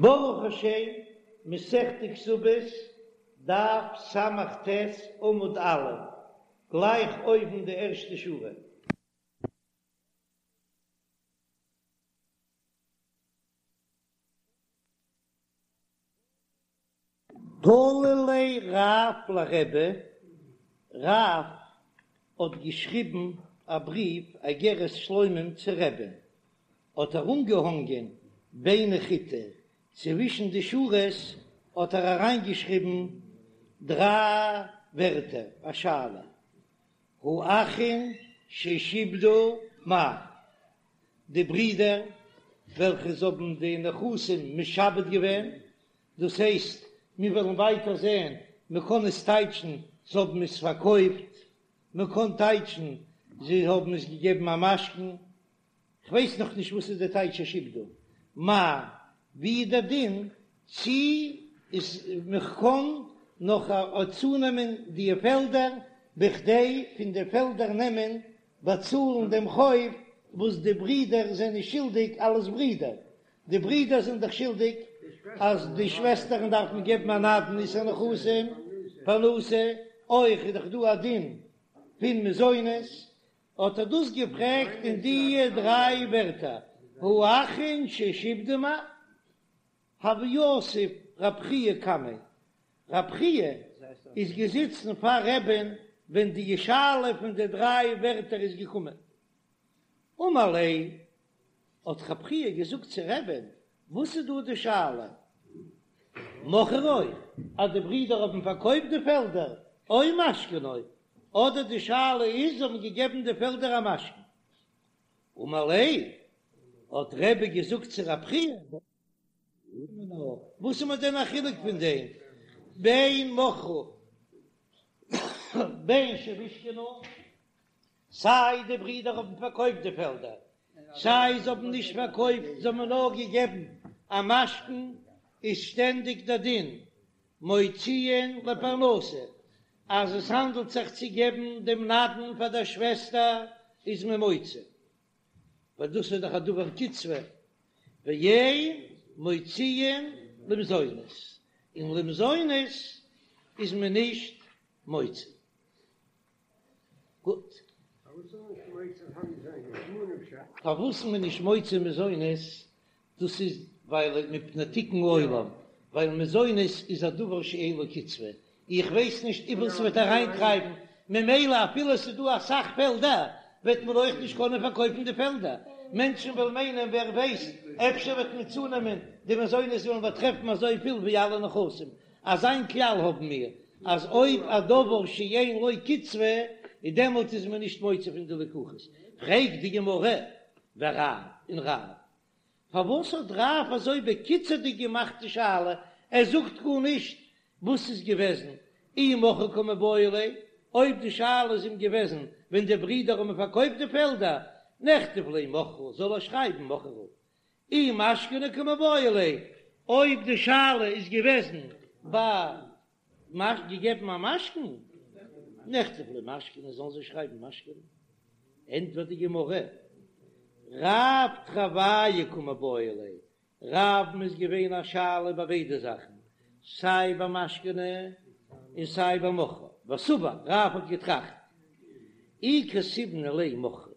ברוך השם, מסכת כתובות, דף ס"ט עמוד א', גלייך אויבן די ערשטע שורה. תלי ליה רב לרבי, רב האט געשריבן א בריוו אגרת שלומים צו רבי'ן, האט ער אנגעהאנגען ביני חיטי, צווישן די שורות האט ער אריינגעשריבן דריי ווערטער, א שאלה, האחין ששעבדו מהו, די ברידער וועלכע זיי האבן די נכסים משעבד געווען, דאס הייסט, מיר וועלן ווייטער זען, מען קען עס טייטשן זיי האבן עס פארקויפט, מען קען טייטשן זיי האבן עס געגעבן א משכון, כ'ווייס נאך נישט וואס איז די טייטש ששעבדו מהו, ווי איז דער דין צי איז מען קען נאך צונעמען די פעלדער בכדי פון די פעלדער נעמען באצאלן דעם חוב וואס די ברידער זענען שולדיג אלס ברידער, די ברידער זענען דאך שולדיג אז די שוועסטערן דארפן געבן א נדן עישור נכסים פרנסה, אויך איז דאך דא א דין פון מזונות, האט ער דאס געפרעגט אין די דריי ווערטער, האחין ששעבדו מהו, הוה יתיב רב חייא קמיה, רב חייא איז געזיצן פאר רבי'ן ווען די שאלה פון די דריי ווערטער איז געקומען, אמר ליה, האט רב חייא געזאגט צו רבי'ן, וואס איז דא די שאלה? מכרו, אז די ברידער האבן פארקויפט די פעלדער, או משכנו, אדער די שאלה איז זיי האבן געגעבן די פעלדער א משכון. אמר ליה, האט רבי געזאגט צו רב חייא, וואס איז מיר דען א חילוק פון דעם בין מכרו בין שמשכנו, סיי די ברידער האבן פארקויפט די פעלדער, סיי זיי האבן נישט פארקויפט, זיי האבן נאר געגעבן א משכון, איז שטענדיג דער דין מוציאין לפרנסה, אז עס האנדלט זיך צו געבן דעם נדן פאר דער שוועסטער איז מען מוציא, ווייל דאס איז דאך א דבר קצבה, ואין מוציאין למזונות, און למזונות איז מען נישט מוציא. גוט. פארוואס איז מען נישט מוציא מזונות? דאס איז ווייל מפני תיקון עולם, ווייל מזונות איז א דבר שאין לו קצבה, איך ווייס נישט וויפיל ס'וועט אריינטרייבן, ממילא אפילו ס'איז דא אסאך פעלדער וועט מען אויך נישט קענען פארקויפן די פעלדער, מענטשן וועלן מיינען ווער ווייסט אפשר וועט מען צונעמען די מזונות וועלן באטרעפן אזויפיל ווי אלע נכסים, אזא כלל האבן מיר אז אויב א דבר שאין לו קצבה איז דעמאלט איז מען נישט מוציא פון די לקוחות, פרעגט די גמרא ורב און רב פארוואס האט רב אזוי בקיצור'דיג געמאכט די שאלה, ער זאגט גארנישט וואס איז געוועזן אי מכרו קמיבעיא ליה, אויב די שאלה איז אים געוועזן ווען די ברידער האבן פארקויפט די פעלדער, נכתוב ליה מכרו זאל ער שרייבן מכרו, אי משכנו קמיבעיא ליה, אויב די שאלה איז געוועזן ביי מש געגעבן א משכון, נכתוב ליה משכנו זאלן זיי שרייבן משכנו, ענטפערט די גמרא, רב תרוייהו קמיבעיא ליה, רב'ן איז געווען א שאלה ביי ביידע זאכן, סיי ביי משכנו און סיי ביי מכרו, וסבר, רב האט געטראכט, אי כתיבנא ליה מכרו,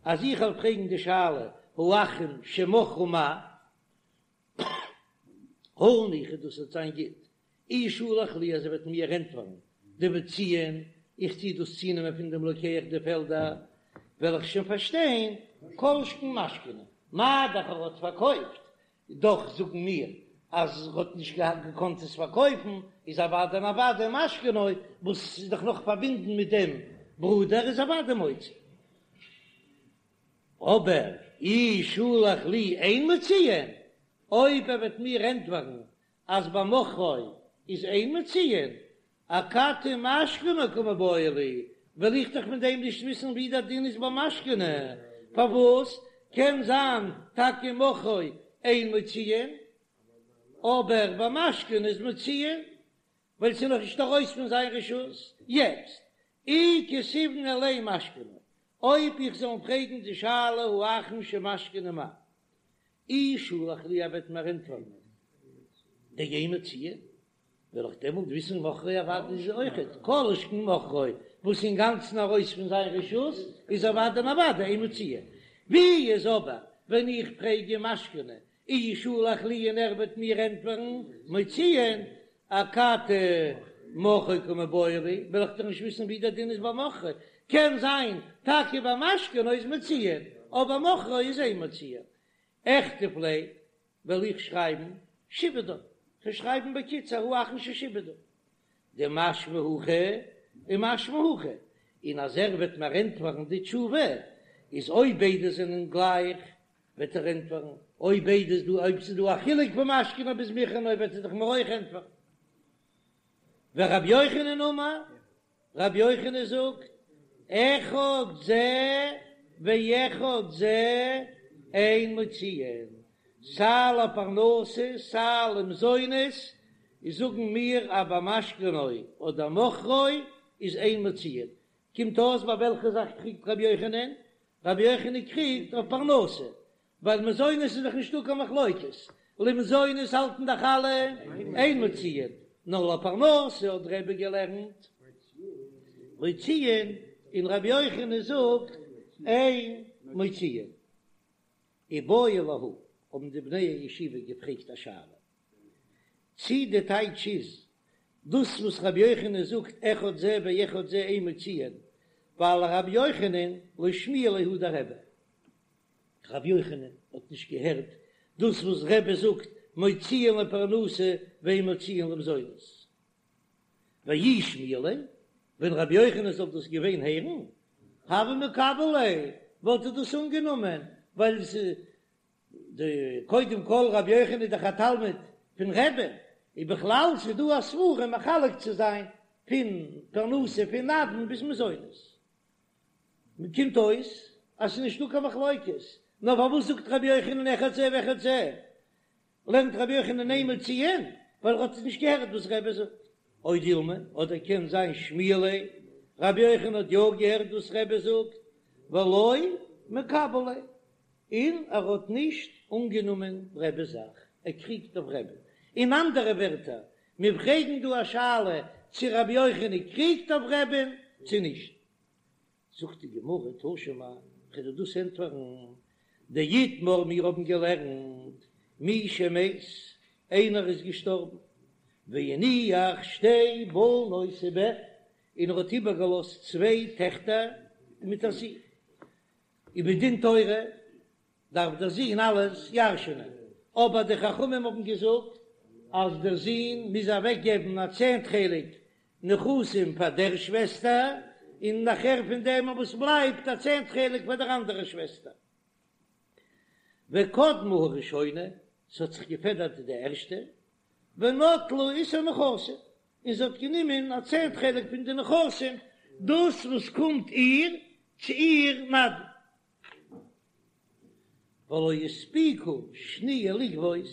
אז איך וועל פרעגן די שאלה האחין שמכרו מהו, הא ניחא דאס וועט זיין גוט, אי שלח לי אז ער וועט מיר ענטפערן דמוציאין, איך טו דאס צונעמען פון דעם לוקח די פעלדער, וועל איך שוין פארשטיין, כל שכן משכנו, מה דאך ער האט פארקויפט, דאך זאגן מיר אז ער האט נישט געקאנט עס פארקויפן, איז אוודאי און אוודאי משכנו, וואס איז דאך נאך פארבינדן מיט דעם ברודער, איז אוודאי מוציא. אבער אי שלח לי אין מוציאין, אויב ער וועט מיר ענטפערן אז ביי מכרו איז אין מוציאין, אכתי משכנו קמיבעיא לי, וועל איך דאך פון דעם נישט וויסן ווי דער דין איז ביי משכנו, פארוואס קען זיין טאקע מכרו אין מוציאין, אבער ביי משכנו איז מוציאין, ווייל ס'איז נאך נישט ארויס פון זיין רשות, יעצט אי כתיבנא ליה משכנו, אויב איך זאל אים פרעגן די שאלה האחין שמשכנו מהו, אי שלח לי ער וועט מיר ענטפערן. דאין מוציאין, וועל איך דעמאלט וויסן מכרו אוודאי איז אויכעט כל שכן מכרו וואס אינגאנצן ארויס פון זיין רשות איז אוודאי און אוודאי אין מוציאין. ווי איז אבער ווען איך פרעג אים משכנו אי שלח לי און ער וועט מיר ענטפערן מוציאין אכתי מכרו קמיבעיא לי, וועל איך דאך נישט וויסן ווי דער דין איז ביי מכרו, קען זיין טאקע ביי משכנו איז מוציאין אבער מכרו איז אין מוציאין. אכתוב ליה וועל איך שרייבן שעבדה, כ'וועל שרייבן בקיצור האחרון ששעבדה, דמשמע הכי ומשמע הכי, און אז ער וועט מיר ענטפערן די תשובה, איז אויב ביידע זענען גלייך, וועט ער ענטפערן, אויב ביידע איז דא, אויב ס'איז דא א חילוק פון משכנו ביז מכרו וועט ער דאך מיר אויך ענטפערן. ורבי יוחנן אמר, רבי יוחנן זאגט, אחד זה ואחד זה אין מוציאין, סיי לפרנסה סיי למזונות, איז זאגן מיר אז ביי משכנו אדער מכרו איז אין מוציאין, קומט אויס ביי וועלכע זאך קריגט רבי יוחנן? רבי יוחנן קריגט אויף פרנסה, ווייל מזונות איז דאך נישטא קיין מחלוקת, למזונות האלטן דאך אלע אין מוציאין, נאר לפרנסה האט רבי געלערנט מוציאין, און רבי יוחנן זאגט אין מוציאין. איבעיא להו, האבן די בני הישיבה געפרעגט א שאלה, צי די טייטש איז דאס וואס רבי יוחנן זאגט אחד זה ואחד זה אין מוציאין, ווייל רבי יוחנן לא שמיע ליה הא דרבי, רבי יוחנן האט נישט געהערט דאס וואס רבי זאגט מוציאין לפרנסה ואין מוציאין למזונות. ואי שמיע ליה, ווען רבי יוחנן זאל דאס געווען הערן, הוה מקבל ליה, וואלט ער דאס אנגענומען, ווייל די קודם כל רבי יוחנן איז דאך א תלמיד פון רבי'ן, און בכלל ס'איז דא א סברא מחלק צו זיין פון פרנסה פון נדן ביז מזונות. קומט אויס אז ס'איז נישטא קיין מחלוקת, נאר פארוואס זאגט רבי יוחנן אחד זה ואחד זה? לערנט רבי יוחנן אין מוציאין ווייל ער האט נישט געהערט וואס רבי זאגט. או דילמא, אדער קען זיין שמיע ליה, רבי יוחנן האט יא געהערט וואס רבי זאגט, ולא מקבל ליה, און ער האט נישט אנגענומען רבי'ס זאך, ער קריגט אויף רבי. אין אנדערע ווערטער, מיר פרעגן דא א שאלה צו רבי יוחנן קריגט אויף רבי'ן צו נישט. זאגט די גמרא תא שמע, כ'וועל דיר דאס ענטפערן, דאיתמר מיר האבן געלערנט מי שמת, איינער איז געשטארבן, והניח שתי בנות ובן, און ער האט איבערגעלאזט צוויי טעכטער מיט א זון, און מדין תורה דארף דער זון אלעס ירש'נען, אבער די חכמים האבן געזאגט אז דער זון מוז אוועקגעבן א צענט חלק נכסים פאר דער שוועסטער, און נאכער פון דעם וואס בלייבט א צענט חלק פאר דער אנדערער שוועסטער. וקדמה הראשונה, ס'האט זיך געפעדערט די ערשטע, ונטלה עישור נכסים, און זי האט גענומען א צענט חלק פון די נכסים, דאס וואס קומט איר צו איר נדן. ולא הספיקה שניה לגבות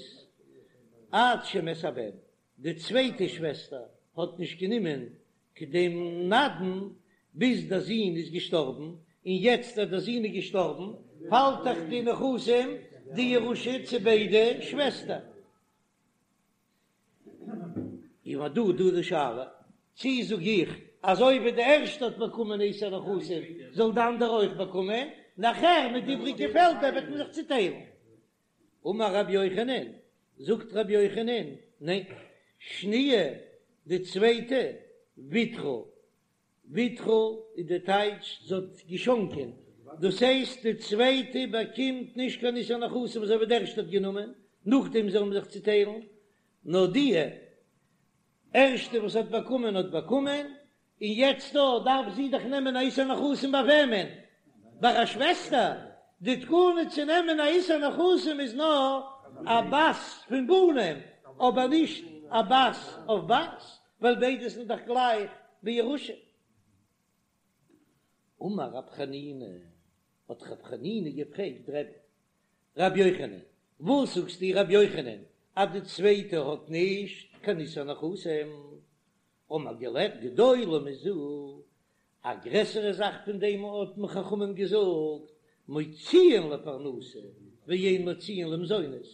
עד שמת הבן, די צווייטע שוועסטער האט נישט גענומען דעם נדן ביז דער זון איז געשטארבן, און יעצט אז דער זון איז געשטארבן פאלט דאך די נכסים די ירושה צו ביידע שוועסטער. און דא דא די שאלה, צי זאג איך אזוי ווי די ערשטע האט באקומען עישור נכסים זאל די אנדערע אויך באקומען, נאכער מיט די איבריגע פעלדער וועט מען זיך צוטיילן. אמר רבי יוחנן, זאגט רבי יוחנן, ניין, שניה, די צווייטע, ויתרה, ויתרה איז די טייטש זי האט געשאנקען, דאס הייסט די צווייטע באקומט נישט קיין עישור נכסים אזוי ווי די ערשטע האט גענומען, נאכדעם זאל מען זיך צוטיילן, נאר די ערשטע וואס האט באקומען האט באקומען, און יעצט דא דארף זי דאך נעמען א עישור נכסים ביי וועמען? ביי א שוועסטער? די תקנה צו נעמען א עישור נכסים איז נאר א בת פון בנים, אבער נישט א בת אויף בת, ווייל ביידע זענען דאך גלייך בירושה. אמר רב חנינא, האט רב חנינא געפרעגט רבי רבי יוחנן, וואס זאגסטו רבי יוחנן אז די צווייטע האט נישט קיין עישור נכסים? האבן מיר געלערנט גדולה מזו, א גרעסערע זאך פון דעם האט מען חכמים געזאגט, מוציאין לפרנסה ואין מוציאין למזונות,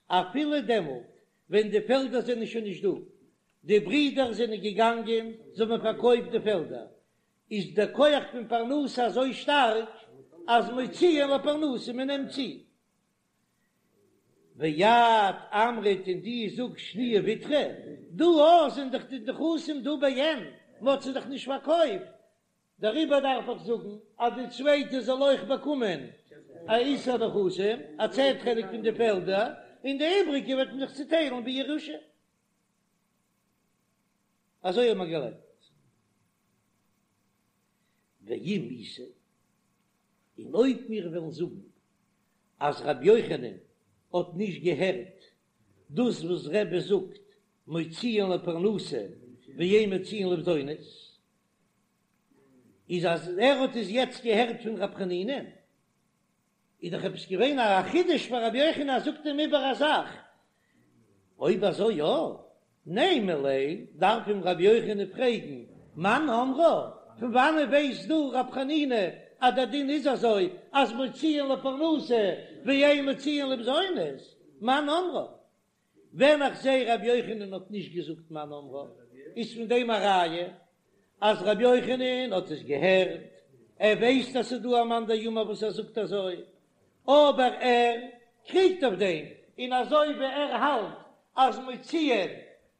אפילו דעמאלט. ווען די פעלדער זענען שוין נישט דא, די ברידער זענען געגאנגען, זיי האבן פארקויפט די פעלדער, איז דער כח פון פרנסה אזוי שטארק אז מוציאין לפרנסה, מען נעמט צו. ואת אמרת און דו זאגסט שניה ויתרה, דא אויך זענען דאך די נכסים דא בעין, מען האט זיי דאך נישט פארקויפט, דעריבער דארף איך זאגן אז די צווייטע זאל אויך באקומען א עישור נכסים, א צענט חלק פון די פעלדער, און די איבריגע וועט מען זיך צוטיילן בירושה. אזוי האט מען געלערנט. ואם איתא, און אויב מיר וועלן זאגן אז רבי יוחנן האט נישט געהערט דאס וואס רבי זאגט מוציאין לפרנסה ואין מוציאין למזונות, איז אז ער האט עס יעצט געהערט פון רב חנינא, איז דאך עפעס געווען א חידוש פאר רבי יוחנן אז זאגט אים איבער א זאך, אויב אזוי יא, נימא ליה, דארף אים רבי יוחנן פרעגן, מאן אמרה, פון וואנען ווייסט דו רב חנינא אז דער דין איז אזוי אז מוציאין לפרנסה ואין מוציאין למזונות, מאן אמרה? ווען איך זעה רבי יוחנן האט נישט געזאגט מאן אמרה, איז פון דעם א ראיה אז רבי יוחנן האט עס געהערט, ער ווייסט אז ס'איז דא א מאן דאמר וואס ער זאגט אזוי, אבער ער קריגט אויף דעם, און אזוי ווי ער האלט אז מוציאין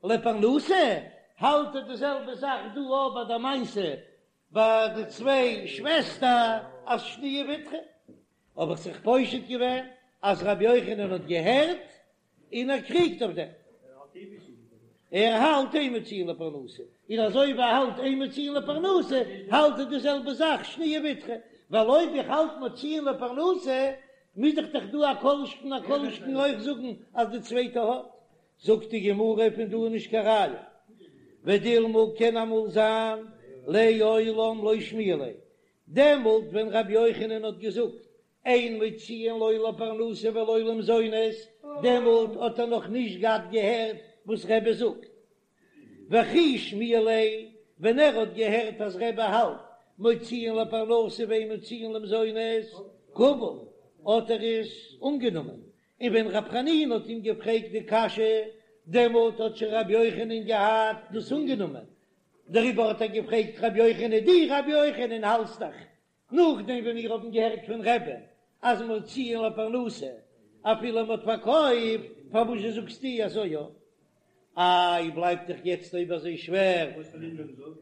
לפרנסה, האלט ער די זעלבע זאך דא אויך ביי די מעשה ביי די צוויי שוועסטער אז שניה ויתרה, האב איך זיך פושט געווען אז רבי יוחנן האט געהערט און ער קריגט אויף דעם, ער האלט אין מוציאין לפרנסה, און אזוי ווי ער האלט אין מוציאין לפרנסה האלט ער די זעלבע זאך שניה ויתרה, ווייל אויב איך האלט מוציאין לפרנסה מוז איך דאך דא א כל שכן א כל שכן אויך זאגן אז די צווייטע האט, זאגט די גמרא פון דא איז נישט קיין ראיה, ודילמא קען אמאל זיין לעולם לא שמיע ליה, דעמאלט ווען רבי יוחנן האט געזאגט אין מוציאין לא לפרנסה ולא למזונות, דעמאלט האט ער נאך נישט געהאט געהערט וואס רבי זאגט, וכי שמיע ליה, ווען ער האט געהערט אז רבי האלט מוציאין לפרנסה ואין מוציאין למזונות, קביל, האט ער עס אנגענומען, און ווען רב חנינא האט אים געפרעגט די קשיא, דעמאלט האט שוין רבי יוחנן געהאט דאס אנגענומען, דעריבער האט ער געפרעגט רבי יוחנן, דו רבי יוחנן האלטסט דאך נאכדעם ווען מיר האבן געהערט פון רבי'ן אז מוציאין לפרנסה אפילו מען האט פארקויפט, פארוואס זשע זאגסטו אזוי יא? איי בלייבט דאך יעצט אויב אזוי שווער,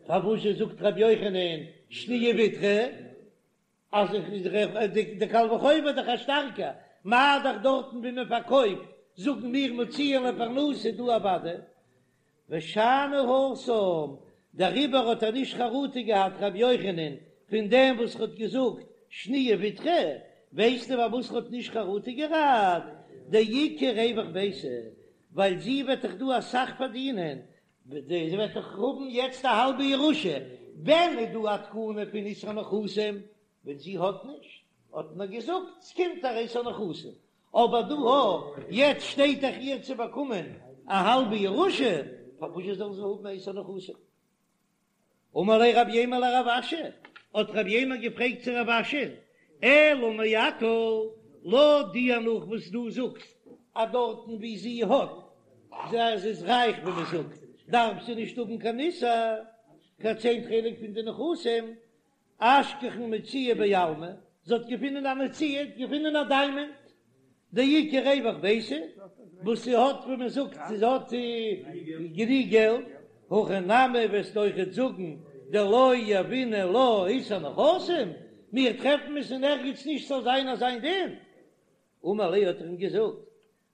פארוואס זשע זאגט רבי יוחנן שניה ויתרה? אז די קל וחומר איז דאך א שטארקע, מה דאך דארטן ווי מען פארקויפט זאגן מיר מוציאין לפרנסה דא אוודאי ושאני התם, דעריבער האט ער נישט חרטה געהאט רבי יוחנן פון דעם וואס ער האט געזאגט שניה ויתרה, ווייסטו פארוואס ער האט נישט חרטה געהאט? דאיכא רווח ביתה, ווייל זי וועט דאך דא אסאך פארדינען, זי וועט דאך האבן יעצט א האלבע ירושה, ווען איז דא א תקנה פון עישור נכסים? ווען זי האט נישט, האט מען געזאגט ס'קומט איר עישור נכסים, אבער דא הא, יעצט שטייט דאך איר צו באקומען א האלבע ירושה, פארוואס זאל זי האבן עישור נכסים? אמר ליה רב יימר לרב אשי, האט רב יימר געפרעגט צו רב אשי, אלא מעתה, לויט דיר נאך וואס דו זאגסט אז דארטן ווי זי האט, זי איז רייך ווי מען זאגט, דארף זי נישט האבן קיין עישור, קיין צענט חלק פון די נכסים, אשכחן מציאה בעלמא, זי האט געפונען א מציאה, געפונען א דיימאנט, דאיכא רווח ביתה, וואס זי האט ווי מען זאגט זי האט גענוג געלט, הכי נמי וועסטו אויכעט זאגן דלא יהבינן לה עישור נכסים, מיר טרעפן עס אין ערגעץ נישט ס'זאל זיין אזא דין, אמר ליה האט ער אים געזאגט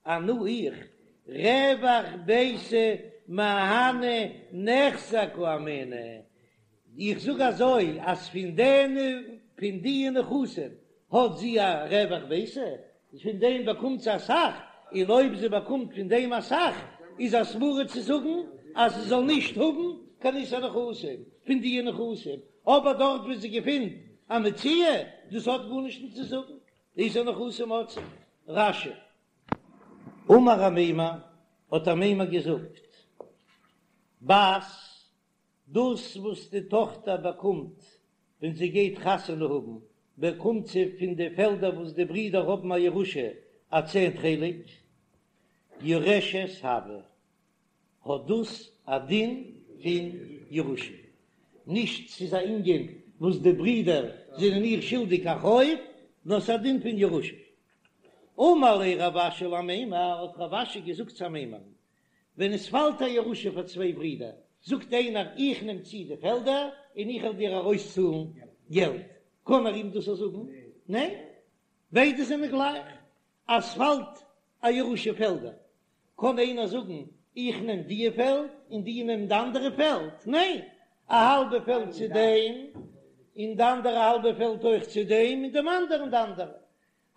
אנא איך, רווח ביתה מהני נכסי קאמינא, איך זאג אזוי אז פון דעם פון די נכסים האט זי א רווח ביתה, פון דעם באקומט זי אסאך, און אויב זי באקומט פון דעם אסאך איז א סברא צו זאגן אז זי זאל נישט האבן קיין עישור נכסים פון די נכסים, אבער דארט וואו זי געפינט א מציאה, דאס האט גארנישט נישט צו זאגן, עישור נכסים האט זי. רש"י. אמר אמימר, האט אמימר געזאגט, בת, דאס וואס די טאכטער באקומט ווען זי גייט חתונה האבן, באקומט זי פון די פעלדער וואס די ברידער האבן א ירושה א צענט חלק. יורשת הויא, האט דאס א דין פון ירושה, נישט ס'איז א ענין וואס די ברידער זענען איר שולדיג א חוב, נאר ס'איז א דין פון ירושה. אמר ליה רב אשי לאמימר, האט רב אשי געזאגט צו אמימר'ן, ווען עס פאלט א ירושה פאר צוויי ברידער, זאגט איינער איך נעם צו די פעלדער און איך וועל דיר ארויסצאלן געלט, קען ער אים דאס זאגן? ניין, ביידע זענען גלייך, אז ס'פאלט א ירושה פעלדער, קען איינער זאגן איך נעם דיע פעלד און די נעמען די אנדערע פעלד? ניין, א האלבע פעלד צו דעם און די אנדערע האלבע פעלד אויך צו דעם און דעם אנדערן די אנדערע.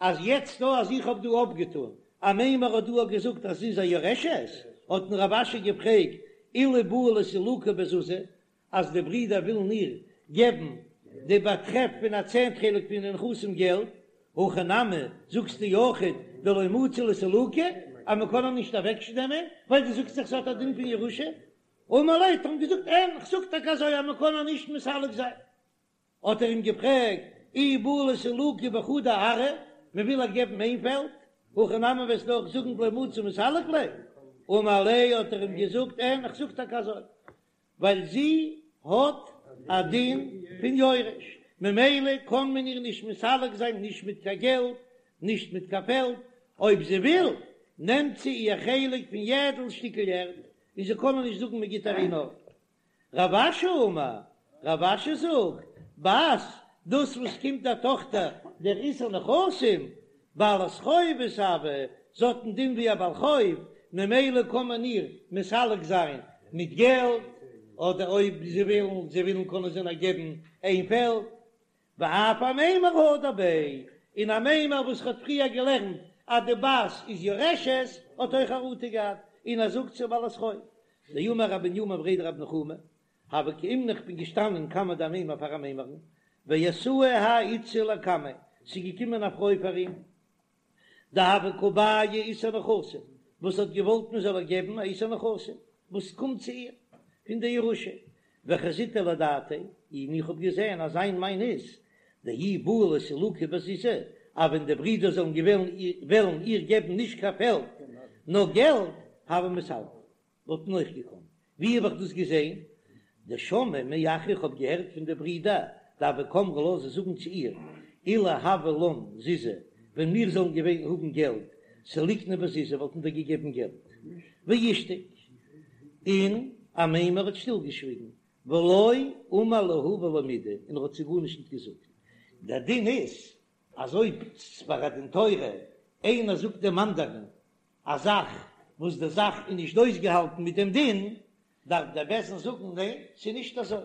אז יעצט דא אז איך האב דא אפגעטון, אמימר האט דא געזאגט אז זי איז א יורשת, האט אים רב אשי געפרעגט אילו בעו לסלוקה בזוזי, אז די ברידער ווילן איר געבן די באטרעף פון א צענט חלק פון די נכסים געלט, הכי נמי זאגסטו אויכעט דלא מצי לסלוקה אז מען קען איר נישט אוועקנעמען ווייל דו זאגסט דאך ס'האט א דין פון ירושה, אמר ליה האט ער אים געזאגט אין כ'זאג טאקע אזוי אז מען קען איר נישט מסלק זיין. האט ער אים געפרעגט, אי בעו לסלוקה בחדא ארעא, מען וויל איר געבן איין פעלד, הכי נמי וועסטו אויך זאגן דלא מצי מסלק ליה? אמר ליה האט ער אים געזאגט, אין, איך זאג טאקע אזוי, ווייל זי האט א דין פון יורש, ממילא קען מען איר נישט מסלק זיין נישט מיט קיין געלט, נישט מיט קיין פעלד, אויב זי וויל, נעמט זי איר חלק פון יעדל שטיקל ערד, און זיי קענען נישט זאגן מען גיט איר נאר. רב אשי אמר, רב אשי זאגט, בת, דאס וואס קומט דער טאכטער דער עישור נכסים, בעלת חובות הויא, זי האט א דין ווי א בעל חוב, ממילא קען מען איר מסלק זיין מיט געלט, אדער אויב זיי ווילן, זיי ווילן קענען זיי נאר געבן איין פעלד. ואף אמימר הדר ביה, און אמימר וואס האט פריער געלערנט אז די בת איז יורשת האט אויך חרטה געהאט, און ער זאגט ס'איז בעלת חוב. דאמר רב בנימין בריה דרב נחומי, הוה קאימנא איך בין געשטאנען קמיה דאמימר פאר אמימר'ן, ואתאי האי איתתא לקמיה, ס'איז געקומען א פרוי פאר אים, דהוה קא בעיא עישור נכסים, וואס האט געוואלט מען זאל איר געבן א עישור נכסים וואס קומט צו איר פון די ירושה, וחזיתיה לדעתיה, און איך האב געזען אז זיין מיין איז, דאי בעו לסלוקה בזוזי, אז ווען די ברידער זאלן וועלן איר געבן נישט קיין פעלד נאר געלט, הוה מסלקא. וואלט מען אויך געקאנט. ווי האב איך דאס געזען? דשמעי מאחוה איך האב געהערט פון די ברידער דהוו קאמרי לה זיי זאגן צו איר אילו הוה לן זוזי ווען מיר זאלן געווען האבן געלט סליקנא בזוזי וואלטן דיר געגעבן געלט ואישתיק און אמימר האט שטיל געשוויגן ולא אמר להו ולא מידי און ער האט זיי גארנישט נישט געזאגט. דער דין איז אז אויב ביי א דין תורה איינער זאגט דעם אנדערן א זאך וואס די זאך איז נישט אויסגעהאלטן מיט דעם דין, דארף דער בית דין זאגן ניין, ס'איז נישט אזוי.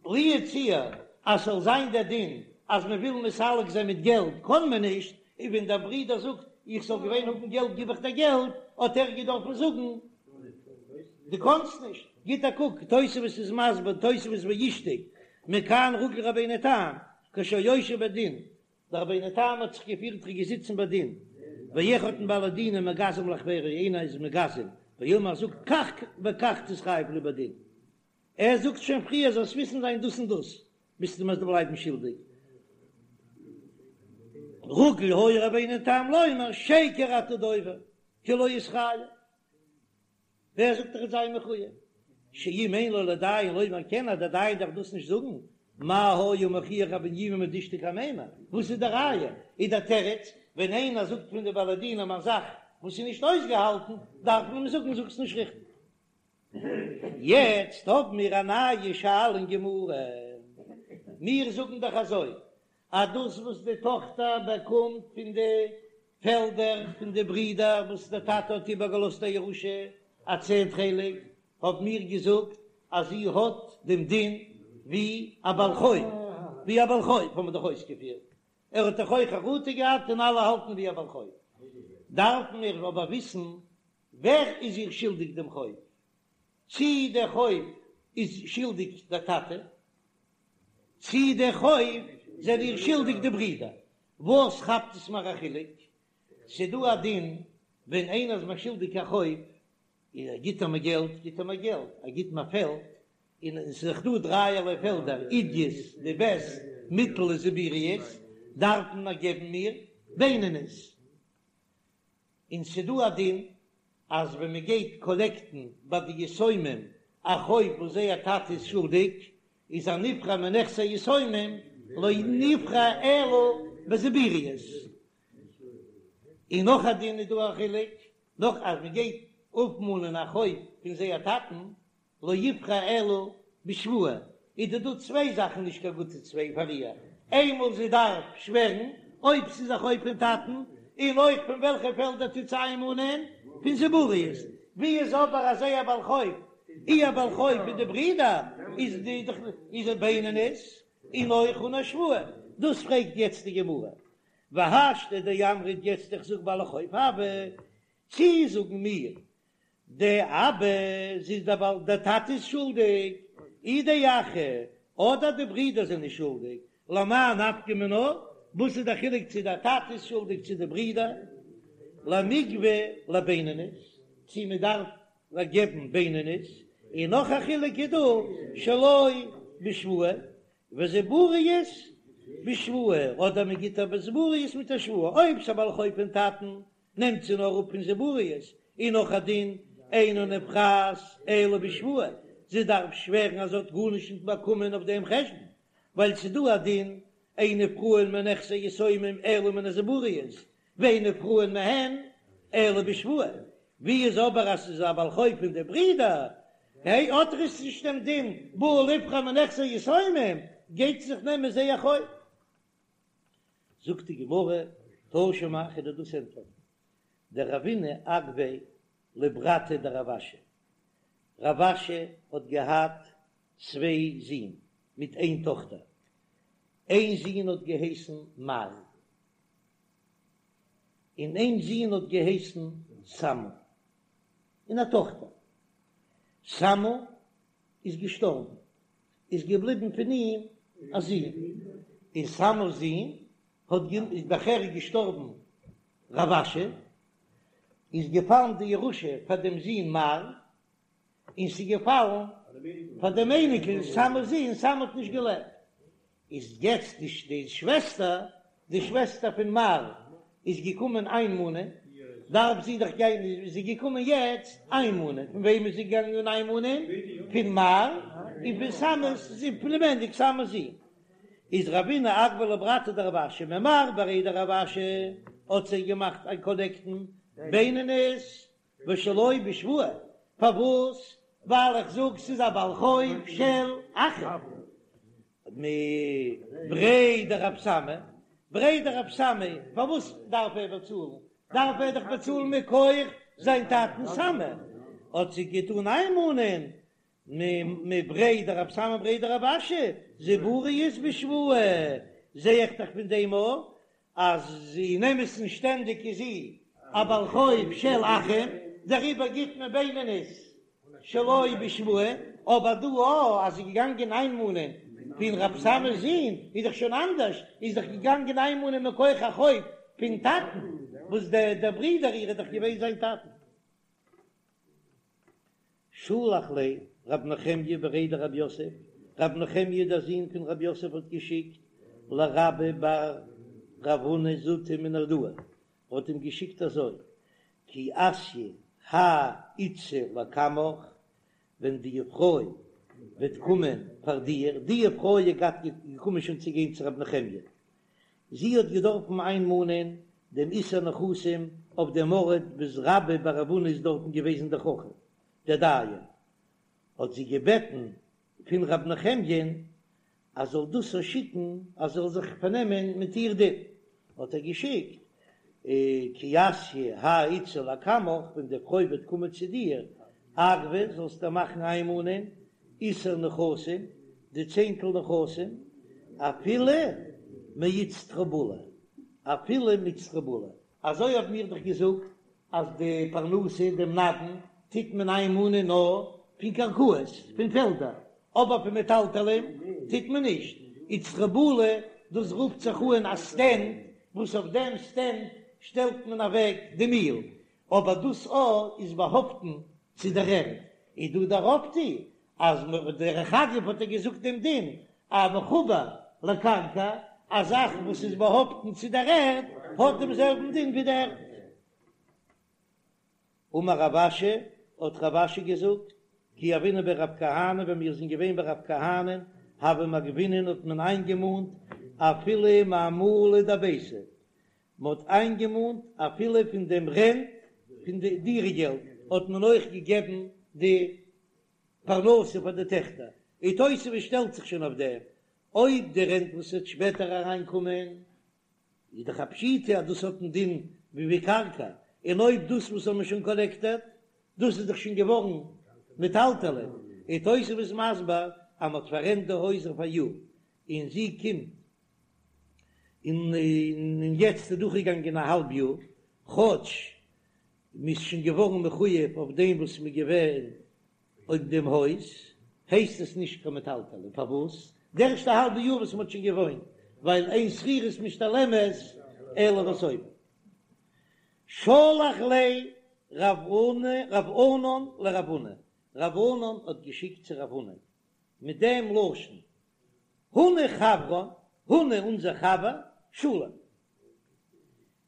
לו יצוייר אז ס'זאל זיין דער דין אז מען וויל מסלק זיין מיט געלט קען מען נישט, און ווען דער ברודער זאגט איך זאל געווען האבן געלט גיב איך דיר געלט, האט ער געדארפן זאגן דו קאנסט נישט. גיט א קוק, תוספות איז מסביר, תוספות ואישתיק, מכאן רגיל רבינו תם, כשהיה יושב בדין, דער רבינו תם האט זיך געפירט ער איז געזיצן ביי דין, ואחד מבעלי דינין מגזם לחבירו איינער איז מגזם, ואומר זאגט כך וכך תתחייב לי בדין, ער זאגט שוין פריער זאלסט וויסן זיין דאס און דאס, ביסטו מוזט בלייבן שולדיג. רגיל היה רבינו תם לומר שקר אתה דובר כי לא אתחייב. ווער זאגט ער וועט זיין מחוייב? שאם אין לו לדיין לומר כן אז דער דיין דארף דאס נישט זאגן, מה היה מוכיח רב בנימי מדאישתיק אמימר? וואס איז די ראיה? איז דער תירוץ, ווען איינער זאגט פון די בעלי דינים א זאך וואס איז נישט אויסגעהאלטן, דארף מען אים זאגן זאגסט נישט ריכטיג. יעצט האבן מיר א נייע שאלה אין גמרא, מיר זאגן דאך אזוי אז דאס וואס די טאכטער באקומט פון די פעלדער פון די ברידער וואס דער טאטע האט איבערגעלאזט א ירושה, א צענט חלק, האבן מיר געזאגט אז זי האט דעם דין ווי א בעל חוב, ווי א בעל חוב האבן מיר דאך אויסגעפירט, ער האט דאך אויך חרטה געהאט און אלע האלטן ווי א בעל חוב. דארפן מיר אבער וויסן ווער איז איר שולדיג דעם חוב, צי דער חוב איז שולדיג דער טאטע, צי דער חוב זענען איר שולדיג די ברידער, וואס כאפט עס מיר א חילוק? ס'דא א דין ווען איינער איז מיר שולדיג א חוב, און ער גיט ער מיר געלט, גיט ער מיר געלט, ער גיט מיר פעלד, און עס איז דאך דא דרייערליי פעלדער, עידית, די בעסט, מיטל און זיבורית, דארף מען געבן מיר בינונית. און ס'דא א דין. אז ווען מען גייט קאלעקטן ביי די יתומים א חוב וואס זייער טאטע איז שולדיג, איז הנפרע מנכסי יתומים לא נפרע אלא בזיבורית. און נאך א דין איז דא א חילוק, נאך אז מען גייט אפמאנען א חוב פון זייער טאטן, לא יפרע אלא בשבועה, איז דא דא צוויי זאכן נישט קיין גוטע צוויי פאר איר, איינמאל זי דארף שווערן אויב ס'איז א חוב פון טאטן, און אויך פון וועלכע פעלדער טוט זי איינמאנען? פון זיבורית, ווי איז אבער אז זייער בעל חוב, איר בעל חוב פון די ברידער איז די איז א בינונית, און אויך אן א שבועה, דאס פרעגט יעצט די גמרא, והשתא דאמרת יעצט איך זאג בעל חוב הוה, צי זאגן מיר דאבא זי איז דער בעל דער טאטע איז שולדיג, אי דאחי אדער די ברידער זענען שולדיג, למאי נפקא מינה, וואס איז דער חילוק צו דער טאטע איז שולדיג צו די ברידער, למיגבא לבינונית, צו מען דארף געבן בינונית, און נאך א חילוק איז דא שלא בשבועה, וזיבורית בשבועה, אדער מען גיט אבער זיבורית מיט א שבועה, אויב ס'איז א בעל חוב פון טאטן נעמט זי נאר אפ פון זיבורית, און נאך א דין, אינה נפרעת אלא בשבועה, זי דארף שווערן אז זי האט גארנישט נישט באקומען אויף דעם חשבון, ווייל ס'איז דא א דין, אין נפרעין מנכסי יתומים אלא מן הזיבורית, ואין נפרעין מהן אלא בשבועה, ווי איז אבער אז ס'איז א בעל חוב פון די ברידער, היי האט ער עס נישט דעם דין בא ליפרע מנכסי יתומים, גייט זי זיך נעמען זייער חוב. זאגט די גמרא, תא שמע, כ'וועל דיר דאס ענטפערן, דרבינא אגביה לברתיה דרב אשי, רב אשי האט געהאט צוויי זין מיט איין טאכטער, איין זון האט געהייסן מר, און איין זון האט געהייסן סמא, און א טאכטער, סמא איז געשטארבן, איז געבליבן פון אים א זון, און סמא'ס זון האט איז נאכער געשטארבן רב אשי, איז געפאלן די ירושה פאר דעם זון מר, און ס'איז געפאלן פאר דעם אייניקל סמא'ס זון, סמא האט נישט געלעבט, איז יעצט די די שוועסטער, די שוועסטער פון מר איז געקומען איינמאנען, דארף זי דאך גיין, איז זי געקומען יעצט איינמאנען, פון וועם איז זי געגאנגען איינמאנען? פון מר און פון סמא'ס זון, פלימעניק סמא'ס זון. איז רבינא אגביה לברתיה דרב אשי ממר בריה דרב אשי האט זי געמאכט איין קאלעקטן בינונית ושלא בשבועה, פארוואס? ווייל איך זאג ס'איז א בעל חוב של אחים. מבריה דרב סמא, בריה דרב סמא, פארוואס דארף ער באצאלן? דארף ער דאך באצאלן מכח זיין טאטן סמא, האט זי געטאן איינמאנען מבריה דרב סמא בריה דרב אשי, זיבורית בשבועה, זע איך דאך פון דעם אויך אז אין אמת'ן שטענדיג איז זי א בעל חוב של אחים, דעריבער גיט מען בינונית שלא בשבועה, אבער דא א אז זי איז געגאנגען איינמאנען פון רב סמא'ס זון איז דאך שוין אנדערש, איז דאך געגאנגען איינמאנען מכח א חוב פון טאטן, וואס דער ברודער איר איז דאך געווען זיין טאטן. שלח ליה רב נחמיה בריה דרב יוסף, רב נחמיה דער זון פון רב יוסף האט געשיקט לרבה בר רב הונא זוטא מנהרדעא, האט אים געשיקט אזוי, כי אתיא האי איתתא לקמך, ווען די פרוי וועט קומען פאר דיר, די פרוי איז געהאט געקומען שוין צו גיין צו רב נחמיה, זי האט געדארפן איינמאנען דעם עישור נכסים אויף דעם ארט וואס רבה בר רב הונא איז דארטן געוועזן דער חכם דער דיין, האט זי געבעטן פון רב נחמיה'ן אז זאל דאס איר שיקן אז זאל זיך פארנעמען מיט איר דין, האט ער געשיקט כי אתיא האי איתתא לקמך, ווען די פרוי וועט קומען צו דיר, אגבי זאלסטו מאכן איינמאנען עישור נכסים, די צענטל נכסים, אפילו מאיצטרובלא, אפילו מאיצטרובלא, אזוי האבן מיר דאך געזאגט אז די פרנסה, דעם נדן, טוט מען איינמאנען נאר פון קרקעות, פון פעלדער, אבער פון מטלטלין טוט מען נישט. איצטרובלא, דאס רופט זיך אן א סטענד, וואס אויף דעם סטענד שטעלט מען אוועק די מיל, אבער דאס א איז באהאפטן צו דער ערד, איז דא דער אויפטו אז דרך אגב האט ער געזאגט דעם דין א מחובר לקרקע, א זאך וואס איז באהאפטן צו דער ערד האט דעם זעלבן דין ווי די ערד. אמר רב אשי, האט רב אשי געזאגט, כי הוינן בי רב כהנא, ווען מיר זענען געווען ביי רב כהנא, הוה מגבינן האט מען איינגעמאנט אפילו מעמלא דביתא, מען האט איינגעמאנט אפילו פון דעם רענט פון די דירה געלט האט מען אויך געגעבן די פרנסה פאר די טעכטער, און תוספות שטעלט זיך שוין אויף דעם, אויב די רענט וואס וועט שפעטער אריינקומען איז דאך א פשיטא אז דאס האט א דין ווי ווי קרקע, און אויב דאס וואס האט מען שוין קאלעקטעט, דאס איז דאך שוין געווארן מטלטלי, און תוספות איז מסביר אז מען האט פאררענט די הויז אויף א יאר, און זי קומט און און יעצט איז דורכגעגאנגען א האלב יאר, כאטש מען איז שוין געווארן מחויב אויף דעם וואס מען איז געווען אויף דעם הויז, הייסט עס נישט קיין מטלטלין, פארוואס? די ערשטע האלבע יאר וואס מען האט שוין געוואוינט, ווייל אין שכירות משתלמת אלא בסופה. שלח ליה רב ענן לרב הונא, רב ענן האט געשיקט צו רב הונא מיט דעם לשון, הונא חברן, הונא אונזער חבר, שלום.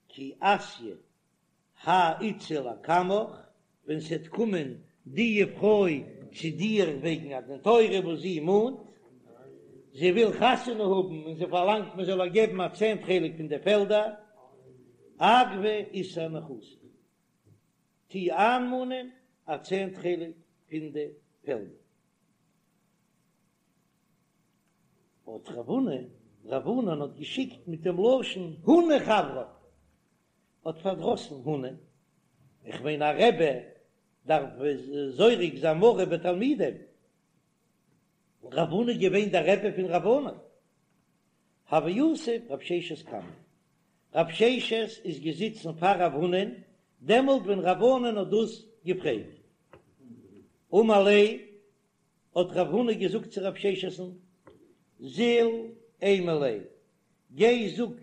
כי אתיא האי איתתא לקמך, ווען ס'עט קומען די פרוי צו דיר וועגן א דין תורה וואס זי מאנט, זי וויל חתונה האבן און זי פארלאנגט מען זאל איר געבן א צענט חלק פון די פעלדער, אגבי עישור נכסי, טו איינמאנען א צענט חלק פון די פעלדער. האט רב הונא, רב ענן האט געשיקט מיט דעם לשון הונא חברן, האט פארדראסן הונא, איך מיין א רבי דארף זורק זיין מרה בתלמידים, רב הונא איז געווען דער רבי פון רב ענן, הוה יתיב רב ששת קמיה, רב ששת איז געזיצן פאר רב הונא'ן דעמאלט ווען רב ענן האט דאס געפרעגט, אמר ליה האט רב הונא געזאגט צו רב ששת'ן, זיל אימא ליה, גיי זאג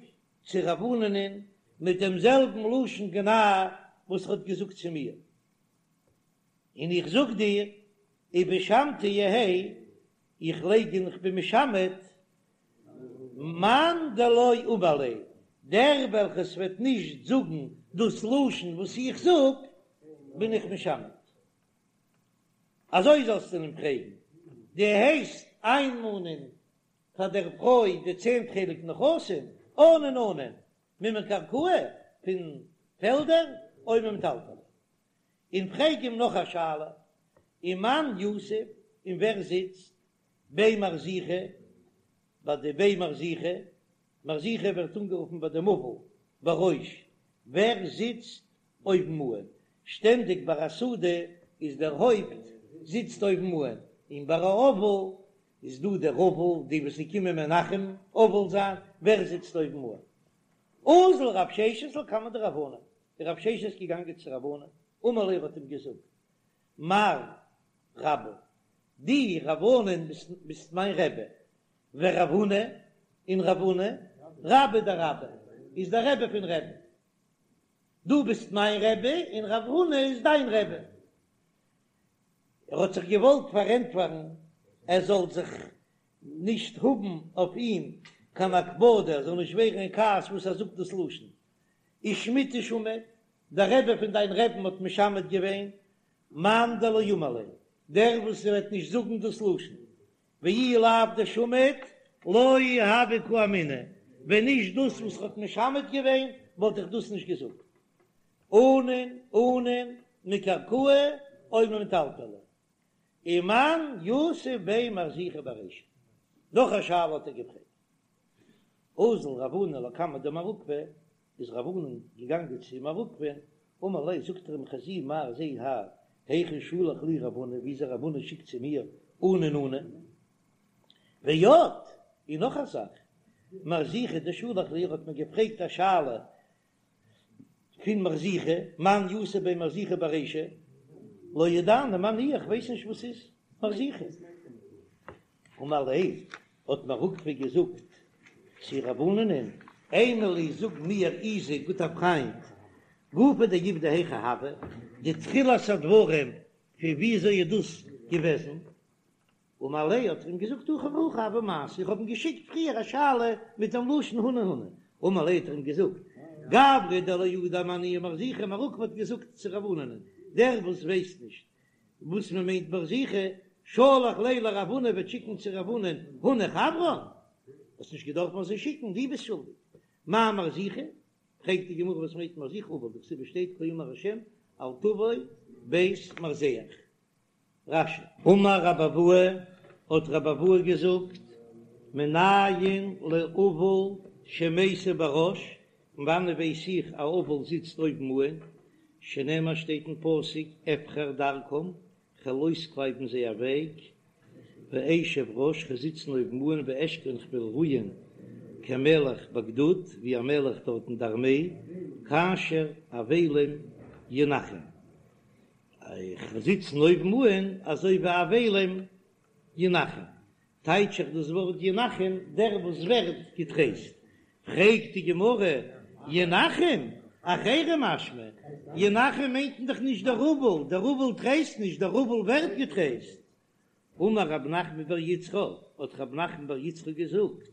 צו רב ענן'ען מיט דעם זעלבן לשון גנאי וואס ער האט געזאגט צו מיר, און איך זאג דיר, ובשמתא יהא, איך לייג און איך בין משמת, מאן דלא אמר ליה, דער וועלכעס וועט נישט זאגן דאס לשון וואס איך זאג, בין איך משמת. אזוי זאלסטו אים פרעגן, דו הייסט איינמאנען פאר דער פרוי די צענט חלק נכסים, אנן אנן, ממקרקעי, פון פעלדער, או ממטלטלי. און פרעג אים נאך א שאלה, ומאן יתיב, און ווער זיצט, בי מרזיחא, ביי די בי מרזיחא, מרזיחא ווערט אנגערופן ביי דעם אבל בראש, ווער זיצט אויבן אן, שטענדיג ביי א סעודה איז דער הויפט זיצט אויבן אן, און ביי א אבל איז דא דער אבל, די וואס זיי קומען מנחם אבל זיין, ווער זיצט אויבן אן? אזל רב ששת לקמיה דרב ענן, איז רב ששת געגאנגען צו רב ענן, אמר ליה האט אים געזאגט, מר רבה, דו רב ענן ביסט מיין רבי, ורב הונא, און רב הונא, רביה דרבה, איז דער רבי פון רבי'ן. דו ביסט מיין רבי און רב הונא איז דיין רבי. ער האט זיך געוואלט פארענטפערן ער זאל זיך נישט האבן אויף אים קיין הקפדה, ער זאל נישט ווערן אין כעס וואס ער זאגט דאס לשון. ושמיטה שמיט, דער רבי פון דיין רבי'ן האט משמט געווען, מאן דלא אמר ליה, דער וואס וועט נישט זאגן דאס לשון, ואי לאו דשמיט לא הוה קאמינא, ווען נישט דאס וואס ר'האט משמט געווען וואלט איך דאס נישט געזאגט. אנן אנן מקרקעי או ממטלטלי. ומאן יתיב בי מרזיחא ברישא. נאך א שאלה האט ער געפרעגט. אזל רב ענן לקמיה דמר עוקבא, איז רב ענן געגאנגען צו מר עוקבא'ן, אמר ליה, זאגט ער אים חזי מר זע האר, היכי שלח לי רב הונא, וויאזוי רב הונא שיקט צו מיר אנן אנן. ועוד, און נאך א זאך, מרזיחא דשלח לי, ער האט מיר געפרעגט א שאלה פון מרזיחא, מאן יתיב בי מרזיחא ברישא, לא ידענא מאי ניהו, איך ווייס נישט וואס איז מרזיחא. אמר ליה, האט מר עוקבא געזאגט צו רב ענן'ען, אימא לי זאג מיר איזי גוטער פריינט, גופא דעובדא היכי הוה, די תחילת הדברים פון וויאזוי איז דאס געוועזן, אמר ליה האט ער אים געזאגט הכי והכי הוה מעשה, איך האב אים געשיקט פריער א שאלה מיט דעם לשון הונא הונא, אמר ליה האט ער אים געזאגט, גברא דלא ידע מאי ניהו מרזיחא, מר עוקבא האט געזאגט צו רב ענן'ען. דער וואס ווייסט נישט וואס מען מיינט מרזיחא, שלח ליה לרב הונא וועט שיקן צו רב הונא'ן הונא חברן, האסט נישט געדארפט אזוי שיקן, דו ביסט שולדיג. מאי מרזיחא? פרעגט די גמרא וואס מיינט מרזיחא אבל דכתיב שטייט כה אמר השם אל תבוא בית מרזח. רש"י. אמר רבי אבהו, האט רבי אבהו געזאגט, מנין לאבל שמיסב בראש, פון וואנען ווייס איך א אבל זיצט אויבן אהן, שנאמר שטייט אין פסוק אבחר דרכם, כ'וועל אויסקלייבן זייער וועג, ואשב ראש, כ'וועל זיצן אויבן אהן, ואשכון כ'וועל רוען כמלך בגדוד, ווי א מלך דארט אין די ארמעי, כאשר אבלים ינחם. איך וועל זיצן אויבן אהן אזוי ווי אבלים ינחם, טייטש איך דאס ווארט ינחם דער וואס ווערט געטרייסט, פרעגט די גמרא, ינחם? אחרים משמע, ינחם מיינט מען דאך נישט דער אבל, דער אבל טרייסט נישט, דער אבל ווערט געטרייסט. אמר רב נחמן בר יצחק, האט רב נחמן בר יצחק געזאגט,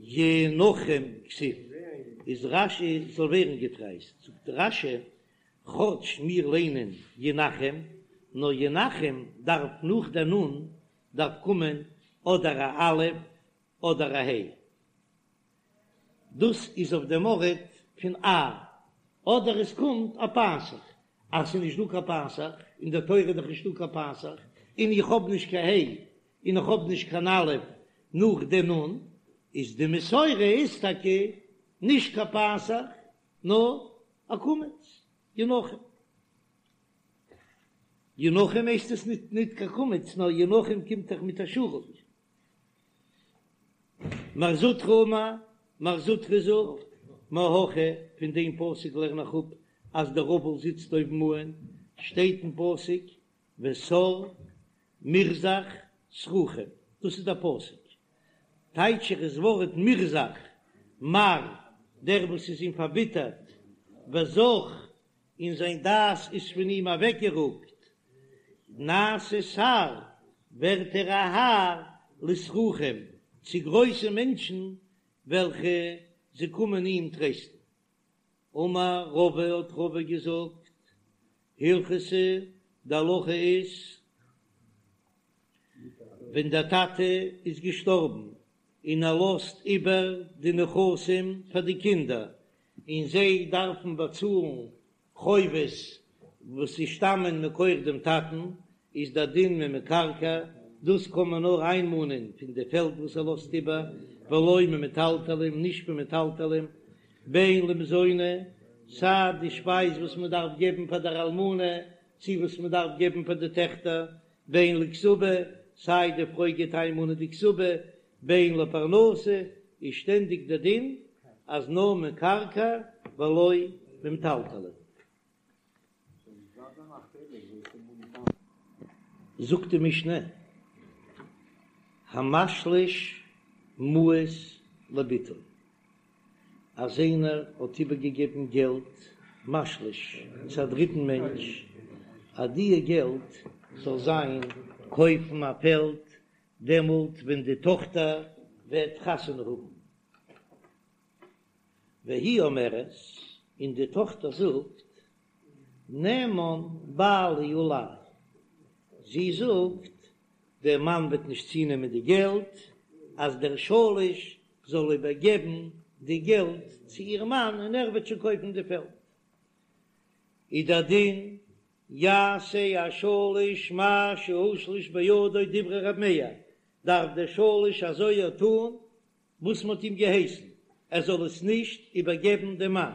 ינחם כתיב, איז רש"י זאל ווערן געטרייסט, זאגט רש"י, כאטש מיר ליינען ינחם, נאר ינחם דארף נאך דער נון דארף קומען אדער א א' אדער א ה'. דאס איז אויף דעם ארט פון א, אדער עס קומט א פתח, אז ס'איז נישט דא קיין פתח, אין דער תורה איז דאך נישטא קיין פתח, און איך האב נישט קיין ה' און איך האב נישט קיין א' נאך די נ', איז די מסורה איז טאקע נישט קיין פתח נאר א קמץ, ינחם. ינחם הייסט עס ניט ניט קיין קמץ נאר ינחם קומט דאך מיט א שורוק. מר זוטרא אמר, מר זוטרא זאגט, מהכא, פון דעם פסוק לערן איך אפ אז דער אבל זיצט אויבן אהן, שטייט אין פסוק וסר מרזח סרוחים, דאס איז דער פסוק, טייטש איך דאס ווארט מרזח, מר, דער וואס איז אים פארביטערט, וזח, און זיין דעת איז פון אים אוועקגערוקט, נעשה שר, ווערט ער א האר לסרוחים, צו גרויסע מענטשן וועלכע זיי קומען אים טרייסטן. אמר רבא האט רבא געזאגט, הלכתא, די הלכה איז, ווען דער טאטע איז געשטארבן און ער לאזט איבער די נכסים פאר די קינדער, און זיי דארפן באצאלן חובות וואס זיי שטאמען מכח דעם טאטן, איז דער דין ממקרקעי, דאס קען מען נאר איינמאנען פון די פעלד וואס ער לאזט איבער, ולא ממטלטלין, נישט פון מטלטלין, בין למזוני, סיי די שפייז וואס מען דארף געבן פאר דער אלמנה, צי וואס מען דארף געבן פאר די טעכטער, בין לכתובה, סיי די פרוי גייט איינמאנען די כתובה, בין לפרנסה, איז שטענדיג דער דין אז נאר מקרקעי ולא ממטלטלין. זאגט די משנה, המשליש מעות לבתו, אז איינער האט איבערגעגעבן געלט משליש צו א דריטן מענטש, אז דיע געלט זאל זיין קויפן א פעלד דעמאלט ווען די טאכטער וועט חתונה האבן. והיא אומרת, און די טאכטער זאגט, נאמן בעלי עלי, זי זאגט, דער מאן וועט נישט צונעמען די געלט, אז דער שליש זאל איבערגעבן די געלט צו איר מאן און ער וועט שוין קויפן די פעלד. איז דער דין, יעשה השליש מה שהושלש בידו דברי ר' מאיר, דארף דער שליש אזוי טאן וואס מ'האט אים געהייסן, ער זאל עס נישט איבערגעבן דעם מאן,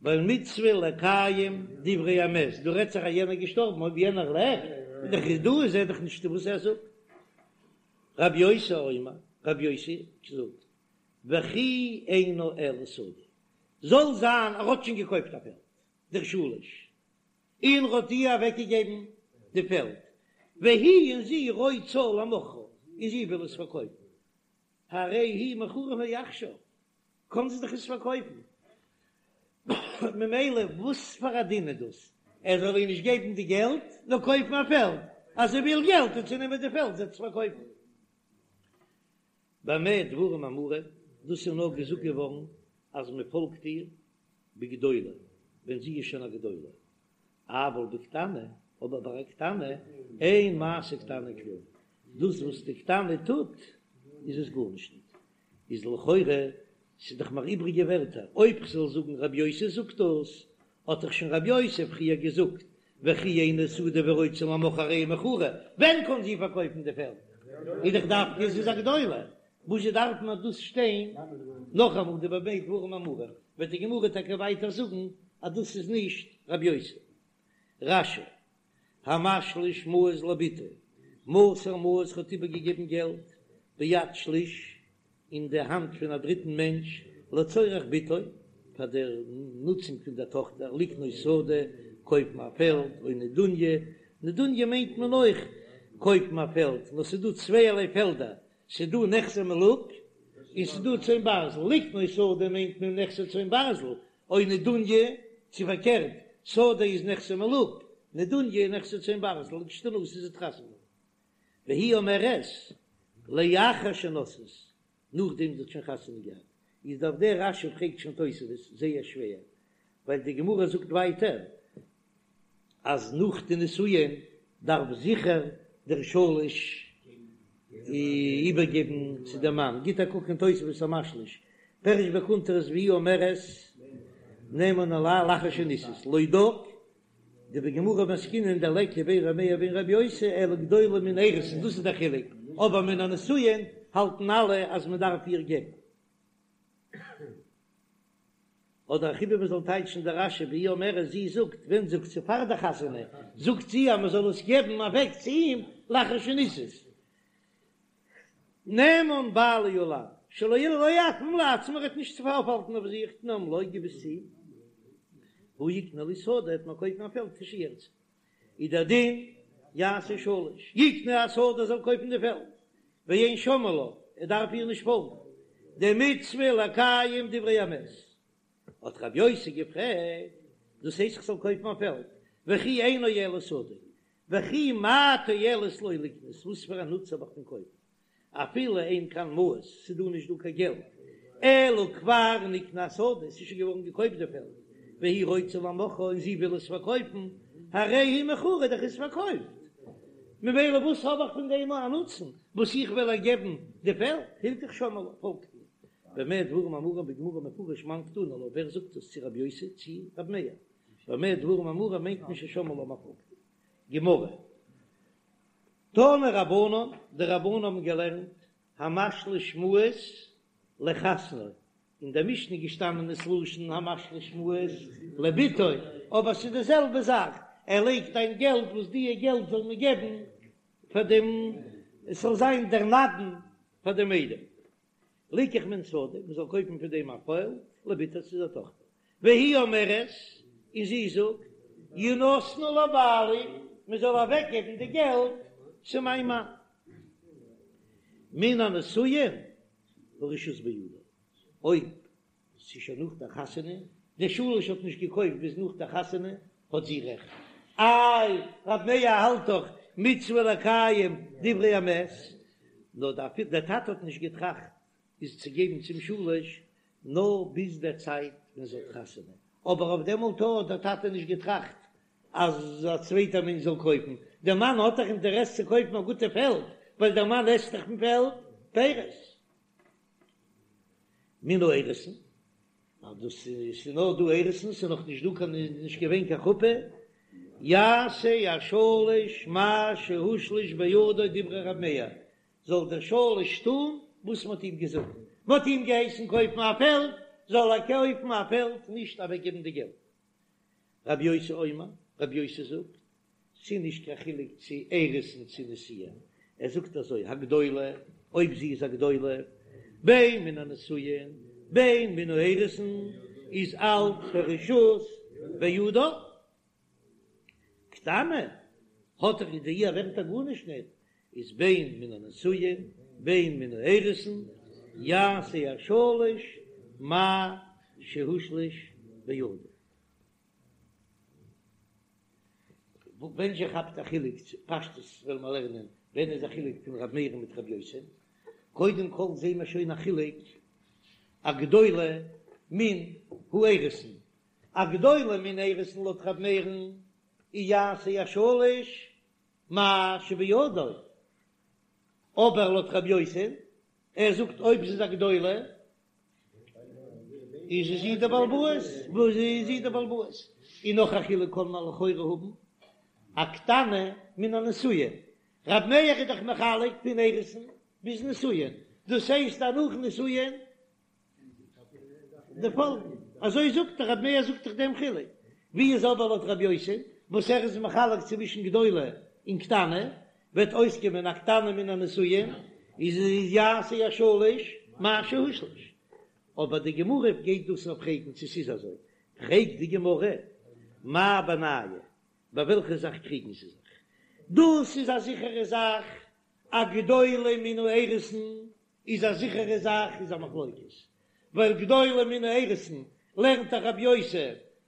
ווייל מצוה לקיים דברי המת, דא רעדט זיך אז יענער איז געשטארבן, אויב יענער לעבט איז דאך איז דא איז ער דאך נישט וואס ער זאגט. רבי יוסי אומר, רבי יוסי זאגט, וכי אינה אלא שדה, זאל זיין ער האט שוין געקויפט א פעלד, דער שליש, און ער האט איר אוועקגעגעבן די פעלד, והיא און זי רוצה למוכרה, און זי וויל עס פארקויפן, הרי היא מכורה מעכשיו, קען זי דאך עס פארקויפן, ממילא וואס פאר א דין איז דאס, ער זאל איר נישט געבן די געלט, נאר קויפן א פעלד, אז זי וויל געלט וועט זי נעמען די פעלד זי וועט עס פארקויפן. במה דברים אמורים, דאס איז נאר געזאגט געווארן אז מען פאלגט איר בגדולה. ווען זי איז שוין א גדולה, אבל בקטנה, אבער ביי א קטנה, אין מעשה קטנה כלום, דאס וואס די קטנה טוט איז עס גארנישט ניט, איז לכאורה ס'איז דאך מיר איבריגע ווערטער, אויב כ'זאל זאגן רבי יוסי זאגט דאס, האט דאך שוין רבי יוסי פריער געזאגט וכי אינה שדה ורוצה למוכרה הרי היא מכורה, ווען קען זי פארקויפן די פעלד? איז דאך דווקא זי איז א גדולה, וואזשע דארף מען דאס שטיין נאכאמאל די במה דברים אמורים, וועט די גמרא טאקע ווייטער זאגן אז דאס איז נישט רבי יוסי. רש"י, המשליש מעות לבתו, מסר מעות האט איבערגעגעבן געלט ביד שליש אין די האנט פון א דריטן מענטש לצורך בתו, פאר דער נוצונג פון דער טאכטער, לקנות שדה, קויפן א פעלד, או נדוניה, נדוניה מיינט מען אויך קויפן א פעלד, נאר ס'איז דא צווייערליי פעלדער, ס'איז דא נכסי מלוג און ס'איז דא צאן ברזל, לקנות שדה מיינט מען נכסי צאן ברזל, או נדוניה, צו פארקערט, שדה איז נכסי מלוג, נדוניה איז נכסי צאן ברזל, לכשתנשא זי וועט חתונה האבן. והיא אומרת, לאחר שנשאת, נאכדעם זי האט שוין חתונה געהאט, איז אויף דער רש"י פרעגט שוין תוספות זייער שווער, ווייל די גמרא זאגט ווייטער אז נאך די נישואין דארף זיכער דער שליש איבערגעבן צו דעם מאן, גיט א קוק אין תוספות המשליש, פירש בקונטרס והיא אומרת נאמן עלי לאחר שנישאת, לא דק דבגמרא מסקינן דליכא בין ר' מאיר ובין ר' יוסי אלא גדולה מן האירוסין דאס איז דער חילוק, אבער מן הנישואין האלטן אלע אז מען דארף איר געבן. אדער אכיבע מען זאל טייטשן די רש"י והיא אומרת זי זאגט ווען זאגט זי פאר די חתונה זאגט זי אז מען זאל עס געבן אוועק צו אים לאחר שנישאת. נאמן בעלי עלי שלא לא יעכבם לעצמו ער וועט נישט צו אויפהאלטן אויף זיך תנם לו גיב עס צו אים והוא יקנה לי שדה וועט מיר קויפן א פעלד כשירצה איז דער דין יעשה שליש יקנה השדה זאל קויפן די פעלד ואין שומעין לה ער דארף איר נישט פאלגן דמצוה לקיים דברי המת האט רבי יוסי געפרעגט דאס הייסט איך זאל קויפן א פעלד וכי אינו אלא שדה וכי מה תועלת לו לקנות, וואס פאר א נוץ האב איך פון קויפן, אפילו אין כאן מעות, ס'איז דא נישט דא קיין געלט, אלא כבר נקנה השדה, ס'איז שוין געווארן געקויפט די פעלד, והיא רוצה למוכרה און זי וויל עס פארקויפן, הרי היא מכורה, דאך איז פארקויפט, ממילא וואס האב איך פון דעם א נוצן, וואס איך וועל איר געבן די פעלד, הלכך שומעין לה, פאלגט איר. במה דברים אמורים בגמרא מפרש מאן קתני לה, ווער זאגט עס צו רבי יוסי צו רבי מאיר? במה דברים אמורים מיינט מען ששומעין לה מ'פאלגט גמרא. תנו רבנן, די רבנן האבן געלערנט המשליש מעות לחתנו, אין דער משנה איז געשטאנען עס לשון המשליש מעות לבתו, אבער ס'איז די זעלבע זאך, ער לייגט איין געלט וואס דיע געלט זאל מען געבן פאר דעם, עס זאל זיין דער נדן פאר דעם איידעם. ליקח מהן שדה, מען זאל קויפן פון דעם א פעלד, לבתו צו דער טאכטער. והיא אומרת, און זי זאגט, ינתנו לבעלי, מען זאל אוועקגעבן די געלט צו מיין מאן. מן הנישואין הרשות בידה, אויב ס'איז שוין נאך דער חתונה, דער שליש האט נישט געקויפט ביז נאך דער חתונה, האט זי רעכט. איי, רב מאיר האלט דאך מצוה לקיים דברי המת, נאר דער טאטע האט נישט געטראכט איז צו געבן צום שליש נאר ביז דער צייט ווען זי האט חתונה, אבער אויף דעמאלט האט דער טאטע נישט געטראכט אז א צווייטער מענטש זאל קויפן, דער מאן האט דאך אינטערעס צו קויפן א גוטע פעלד, ווייל דער מאן עסט דאך פון פעלד פירות. מן האירוסין, ווייל דאס איז נאר דא אירוסין, ס'איז נאך נישט דא קיין, נישט געווען קיין חופה, יעשה השליש מה שהושלש בידו דברי ר' מאיר, זאל דער שליש טון וואס מ'האט אים געזאגט, מ'האט אים געהייסן קויפן א פעלד, זאל ער קויפן א פעלד, נישט אוועקגעבן די געלט. רבי יוסי אומר, רבי יוסי זאגט, ס'איז נישט קיין חילוק צו אירוסין צו נישואין, ער זאגט אזוי, הגדולה, אויב זי איז א גדולה, בין מן הנישואין בין מן האירוסין, איז אלץ הרשות בידה. קטנה, האט דאך די איר ווערט ער גארנישט ניט, איז בין מן הנישואין בין מן האירוסין, יעשה השליש מה שהושלש בידו. ווען זשע כאפט א חילוק צו פשטות וועלן מיר לערנען ווען איז א חילוק פון ר' מאיר מיט ר' יוסי, קודם כל זעהן מיר שוין א חילוק א גדולה מן האירוסין. א גדולה מן האירוסין לויט ר' מאיר'ן איז יעשה השליש מה שבידו, אבער לויט ר' יוסי, ער זאגט אויב ס'איז א גדולה איז זי די בעל הבית, וואס איז זי די בעל הבית? און נאך א חילוק קען מען לכאורה האבן, א קטנה מן הנשואין, ר' מאיר איז דאך מחלק פון אירוסין ביז נישואין, דאס הייסט אז נאך נישואין די פאלגן, אזוי זאגט דאך רבי מאיר זאגט דאך דעם חילוק, ווי איז אבער לויט רבי יוסי וואס ער איז מחלק צווישן גדולה און קטנה, וועט אויסקומען א קטנה מן הנשואין איז יעשה השליש מה שהושלש, אבער די גמרא גייט דאס נאר פרעגן צו ס'איז אזוי, פרעגט די גמרא מאי בינייהו, ביי וועלכע זאך קריגן זיי זיך, דאס איז א זיכערע זאך א גדולה מן האירוסין איז א זיכערע זאך איז א מחלוקת, ווייל גדולה מן האירוסין לערנט דאך רבי יוסי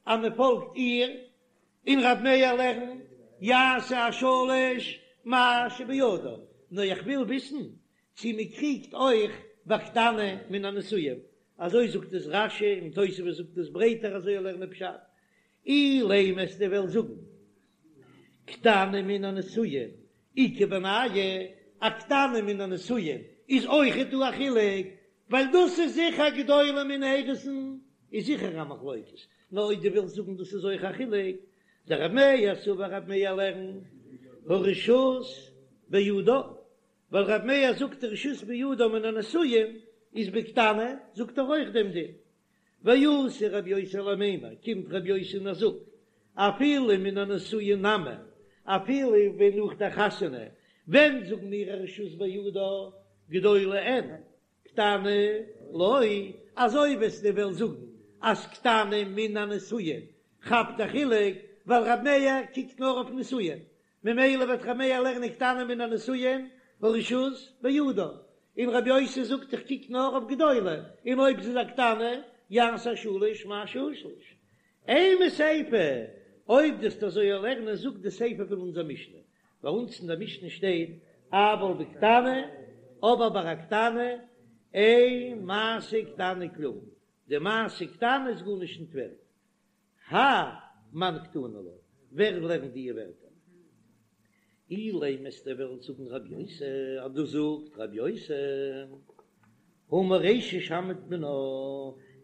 אז מען פאלגט איר, און רבי מאיר לערנט יעשה השליש מה שבידו, נאר איך וויל וויסן צו מען קריגט אויך ביי קטנה מן הנשואין, אזוי זאגט עס רש"י און תוספות זאגט עס ברייטער אזוי לערנען פשט, אילימא וועסטו וועלן זאגן קטנה מן הנשואין איכא בינייהו, א קטנה מן הנשואין איז אויכעט דא א חילוק, ווייל דאס איז זיכער גדולה מן האירוסין איז זיכער א מחלוקת, נאר אויב דו ווילסט זאגן דאס איז אויך א חילוק, דרב מאיר סבר רב מאיר לערנט הרשות בידה, ווייל רב מאיר זאגט הרשות בידה מן הנשואין איז בקטנה זאגט ער אויך דעם דין, ואתא רבי יוסי למימר, קומט רבי יוסי און ער זאגט, אפילו מן הנשואין נמי, אפילו ווען נאך דער חתונה, ווען זאגן מיר הרשות בידה, גדולה אין, קטנה לא, אזוי וועסטו וועלן זאגן אז קטנה מן הנשואין כאפט א חילוק, ווייל רבי מאיר קוקט נאר אויף נשואין, ממילא וועט ר' מאיר לערנען קטנה מן הנשואין הרשות בידה, און רבי יוסי זאגט איך קוק נאר אויף גדולה, און אויב ס'איז א קטנה יעשה השליש מה שהושלש. אימא סיפא, אויב דו וועסט אזוי לערנען זאגט די סיפא פון אונזער משנה, ביי אונז אין דער משנה שטייט אבל בקטנה, אבער ביי א קטנה אין מעשה קטנה כלום, די מעשה קטנה איז גארנישט נישט ווערט, האי מאן קתני לה, ווער לערנט די ווערטער? אילימא וועסטו וועלן זאגן רב יוסי, אז דאס זאגט רב יוסי, הא מרישא שמעת מינה,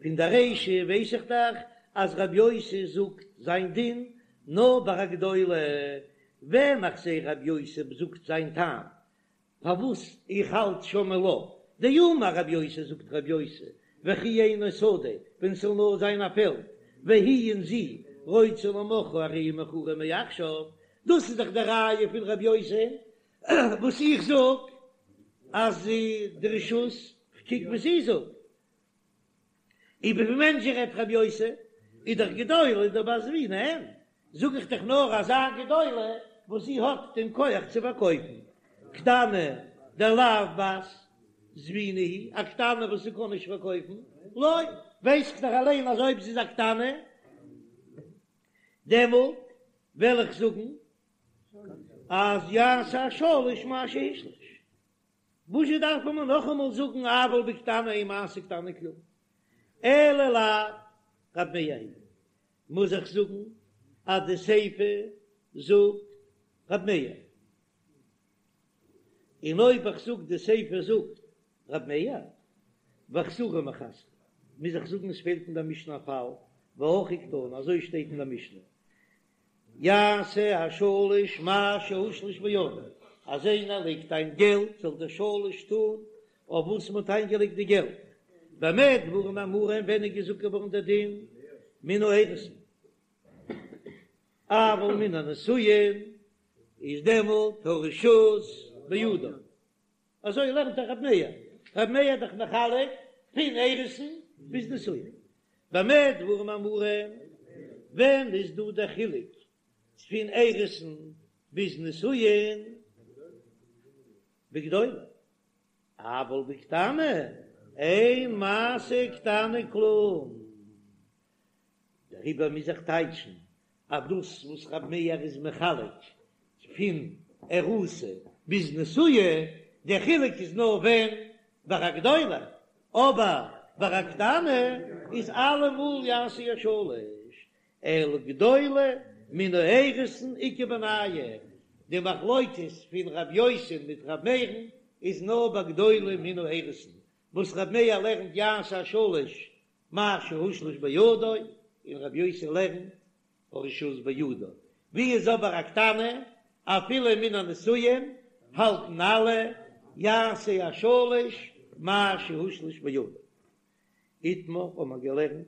פון די רישא ווייס איך דאך אז רב יוסי זאגט זיין דין נאר ביי א גדולה, ווען איך זע רב יוסי זאגט זיין טעם פארוואס איך האלט שומעין לה דאמר רב יוסי זאגט רב יוסי וכי אינו שדה ווען ס'זאל נאר זיין א פעלד והיא און זי רוצה למוכרה הרי היא מכורה מעכשיו דאס איז דאך די ראיה פון רב יוסי וואס איך זאג אז די רשות כ'קוק וואס זי זאגט. איבער וועמען זשע רעדט רבי יוסי, איז דאך גדולה דבת זבינה אין, זאג איך דאך נאר אזא גדולה וואס זי האט דעם כח צו פארקויפן, קטנה דלאו בת זבינה היא, א קטנה וואס זי קען נישט פארקויפן, לא, ווייס איך דאך אליין אז אויב זי איז א קטנה דעמאלט וועל איך זאגן אז יעשה השליש מה שהושלש. וואזשע דארף מען נאכאמאל זאגן אבל בקטנה אין מעשה קטנה כלום? אלא לאו רב מאיר היא מוז איך זאגן אז די סיפא זאגט רב מאיר, און אויב איך זאג די סיפא זאגט רב מאיר וחסורי מיחסרא מוז איך זאגן עס פעלט אין דער משנה א פאל והכי קתני אזוי שטייט אין דער משנה יעשה השליש מה שהושלש בידו, אז איינער לייגט איין געלט זאל דער שליש טון אויף וואס מען האט איינגעלייגט די געלט, במה דברים אמורים ווען איז געזאגט געווארן דער דין מן האירוסין, אבל מן הנשואין איז דעמאלט הרשות בידו. אזוי לערנט דאך רב מאיר, רב מאיר איז דאך מחלק פון אירוסין ביז נישואין. במה דברים אמורים, ווען איז דא דער חילוק פון אירוסין ביז נישואין? בגדולה, אבל בקטנה אין מעשה קטנה כלום. דעריבער מוז איך טייטשן אז דאס וואס רב מאיר איז מחלק פון ארוסה ביז נשואה, דער חילוק איז נאר ווען ביי א גדולה, אבער ביי א קטנה איז אלעמאל יעשה השליש. אלא גדולה מן האירוסין איכא בינייהו, די מחלוקת פון רב יוסי מיט רב מאיר'ן איז נאר ביי גדולה מן האירוסין, וואס רב מאיר לערנט יעשה השלש מה שהושלש בידו, און רב יוסי לערנט הרשות בידו, ווי איז אבער א קטנה אפילו מן הנשואין האלטן אלע יעשה השלש מה שהושלש בידו. איתמר האט מען געלערנט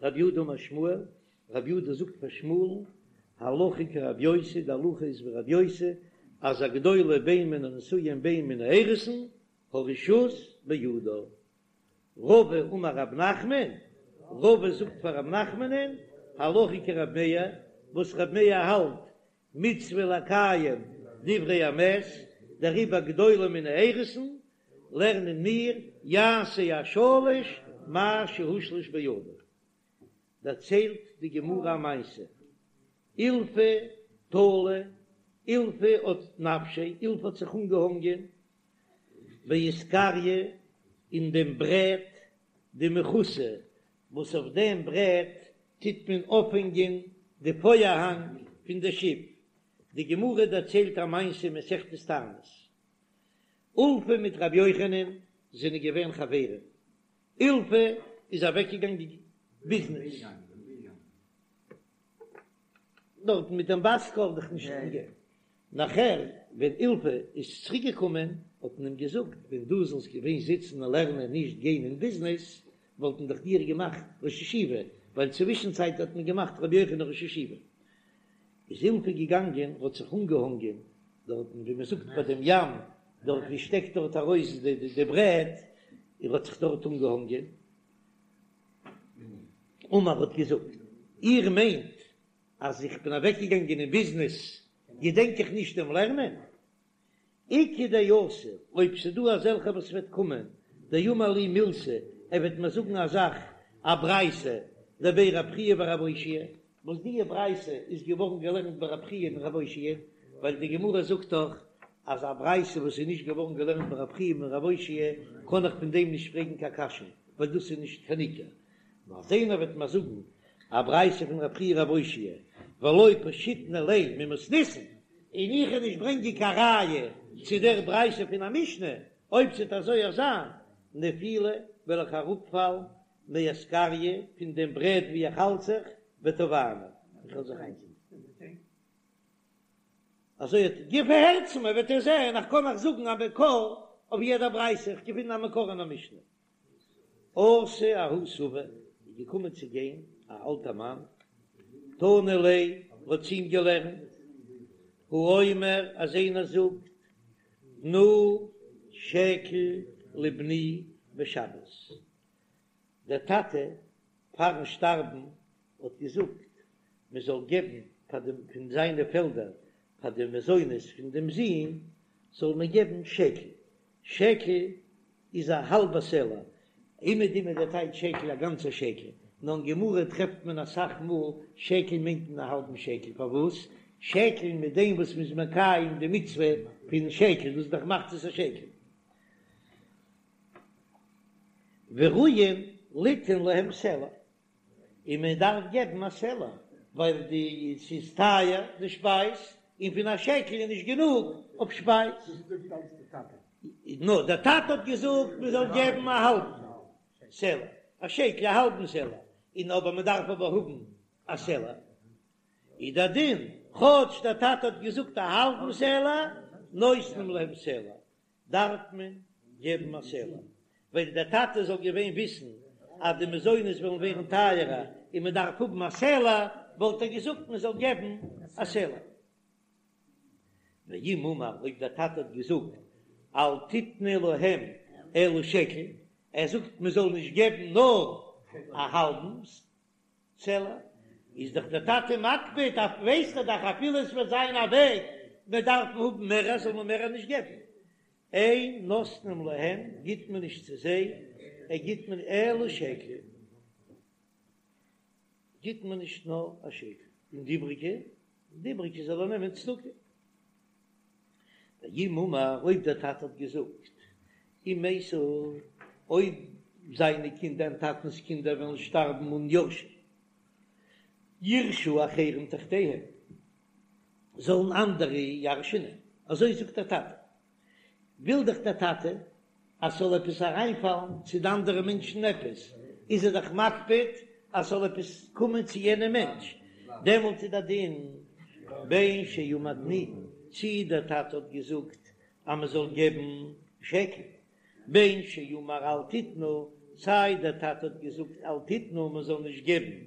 רב יהודה אמר שמואל, רב יהודה זאגט פאר שמואל'ן, הלכה כרב יוסי, די הלכה איז ווי רב יוסי, אז א גדולה בין מן הנשואין בין מן האירוסין, הרשות בידו. רבא אמר רב נחמן, רבא זאגט פאר רב נחמנ'ן, הלכה כרב מאיר, וואס רב מאיר האלט מצוה לקיים דברי המת, דעריבער גדולה מן האירוסין, לערנען מיר יעשה השלש מה שהושלש בידו. דערציילט די גמרא א מעשה, אילפא תלי, אילפא האט נפשיה, אילפא האט זיך אנגעהאנגען באיסקריא אין דעם ברעט דמכותא, וואס אויף דעם ברעט טוט מען אויפהענגען די פארהאנג פון די שיף. די גמרא דערציילט א מעשה אין מסכת תענית, אולפא מיט רבי יוחנן זענען געווען חברים, אילפא איז אוועקגעגאנגען ביזנעס דארטן מיט דעם בת קול דאך נישט געגעבן, נאכער ווען אילפא איז צוריק געקומען האט מען אים געזאגט ווען דו זאלסט געווען זיצן און לערנען נישט גיין אין ביזנעס וואלט מען דאך דיר געמאכט ראש ישיבה, ווייל צווישן צייט האט מען געמאכט רבי יוחנן ראש ישיבה. איז אילפא געגאנגען האט זיך אנגעהאנגען דארטן ווי מען זאגט ביי דעם ים דארט ווי שטעקט דארט ארויס די ברעט, ער האט זיך דארט אנגעהאנגען, אמר האט געזאגט איר מיינט אז איך בין אוועקגעגאנגען אין ביזנעס געדענק איך נישט דעם לערנען? איכא דאתי, אויב ס'דא אזעלכע וואס וועט קומען, דאמר לי מילתא, ער וועט מיר זאגן א זאך, א ברייתא, דבי רב חייא ורב אושעיא, וואס די ברייתא איז געווארן געלערנט ביי רב חייא און רב אושעיא, ווייל די גמרא זאגט דאך אז א ברייתא וואס איז נישט געווארן געלערנט ביי רב חייא און רב אושעיא, קען איך פון דעם נישט פרעגן קיין קשיא, ווייל דאס איז נישט קיין עיקר. נאר אז איינער וועט מיר זאגן א ברייתא פון רב חייא רב אושעיא ולא פשיטנא ליה ממתניתין, און איך וועל נישט ברענגען קיין ראיה צו דער ברייתא פון א משנה, אויב ס'וועט אזוי זיין, נפילא וועל איך אראפפאלן מאסקריא פון דעם ברעט ווי איך האלט זיך, וטבענא, איך וועל זיך איינזינקען. אזוי האט געפערהערט צו מיר, וועט איר זען איך קען אייך זאגן א מקור אויף יעדע ברייתא, איך געפין א מקור אין א משנה. אתא ההוא סבא איז געקומען צו גיין א אלטע מאן, תנא ליה האט צו אים געלערנט, האומר אז איינער זאגט תנו שקל לבני בשבת, דער טאטע פארן שטארבן האט געזאגט מען זאל געבן פאר דעם פון זיינע פעלדער פאר די מזונות פון דעם זון זאל מען געבן שקל, שקל איז א האלבע סלע, אומעדום איז דער טייטש שקל א גאנצע שקל, נאר אין גמרא טרעפט מען אסאך מאל שקל מיינט מען א האלבן שקל, פארוואס שקל מיט דעם וואס מ'איז מקיים די מצוה פון שקל, דאס איז דאך מחצית השקל. וראויין ליתן להם סלע, און מען דארף געבן א סלע, ווייל די ס'איז טייער די שפייז, און פון א שקל איז נישט גענוג אויף שפייז. נאר דער טאטע האט געזאגט מען זאל געבן א האלבן סלע, א שקל א האלבן סלע, און אבער מען דארף אבער האבן א סלע, איז דער דין, כאטש דער טאטע האט געזאגט א האלבן סלע, נותנים להם סלע, דארף מען געבן א סלע, ווען דער טאטע זאל געווען וויסן אז די מזונות וועלן ווערן טייערער און מען דארף האבן א סלע, וואלט ער געזאגט מען זאל געבן א סלע. ואם אמר, אויב דער טאטע האט געזאגט אל תתנו להם אלא שקל, ער זאגט מען זאל נישט געבן נאר א האלבן סלע, איז דאך דער טאטע מקפיד אויף ווייסט ער דאך אפילו עס וועט זיין א וועג מען דארף האבן מער זאל מען מער נישט געבן, אין נותנים להם גיט מען נישט צו זיי, ער גיט מען אלא שקל גיט מען נישט נאר א שקל, און די איבריגע, די איבריגע זאל ער נעמען צדקה. ואם אמר, אויב דער טאטע האט געזאגט, אם מתו, אויב זיינע קינדער, דעם טאטנ'ס קינדער וועלן שטארבן אן יורשים. יירשו אחרים תחתיהם, זאלן אנדערע ירש'נען, אזוי זאגט דער טאטע, וויל דאך דער טאטע אז ס'זאל עפעס אריינפאלן צו די אנדערע מענטשן עפעס, איז ער דאך מקפיד אז ס'זאל עפעס קומען צו יענעם מענטש, דעמאלט איז דער דין בין שאמר תנו, צי דער טאטע האט געזאגט אז מ'זאל געבן שקל, בין שאמר אל תתנו, סיי דער טאטע האט געזאגט אל תתנו מ'זאל נישט געבן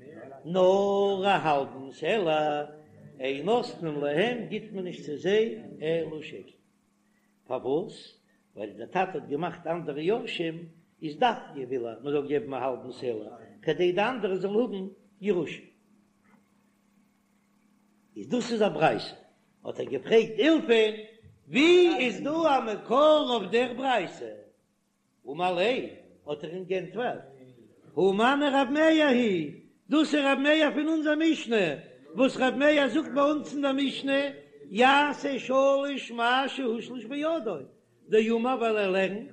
נאר א האלבן סלע, אין נותנים להם גיט מען נישט צו זיי אלא שקל. פארוואס? ווייל דער טאטע האט געמאכט אנדערע יורשים, איז דווקא וויל ער מ'זאל געבן א האלבן סלע כדי די אנדערע זאלן האבן ירושה. איז דאס איז א ברייתא. האט ער געפרעגט אילפא'ן, ווי איז דא א מקור אויף דער ברייתא? אמר ליה, האט ער אים גענטפערט, הא מני רב מאיר היא, דאס איז רב מאיר פון אונזער משנה, וואס רב מאיר זאגט ביי אונז אין דער משנה, יעשה שליש מה שהושלש בידו, דאמר ווייל ער לערנט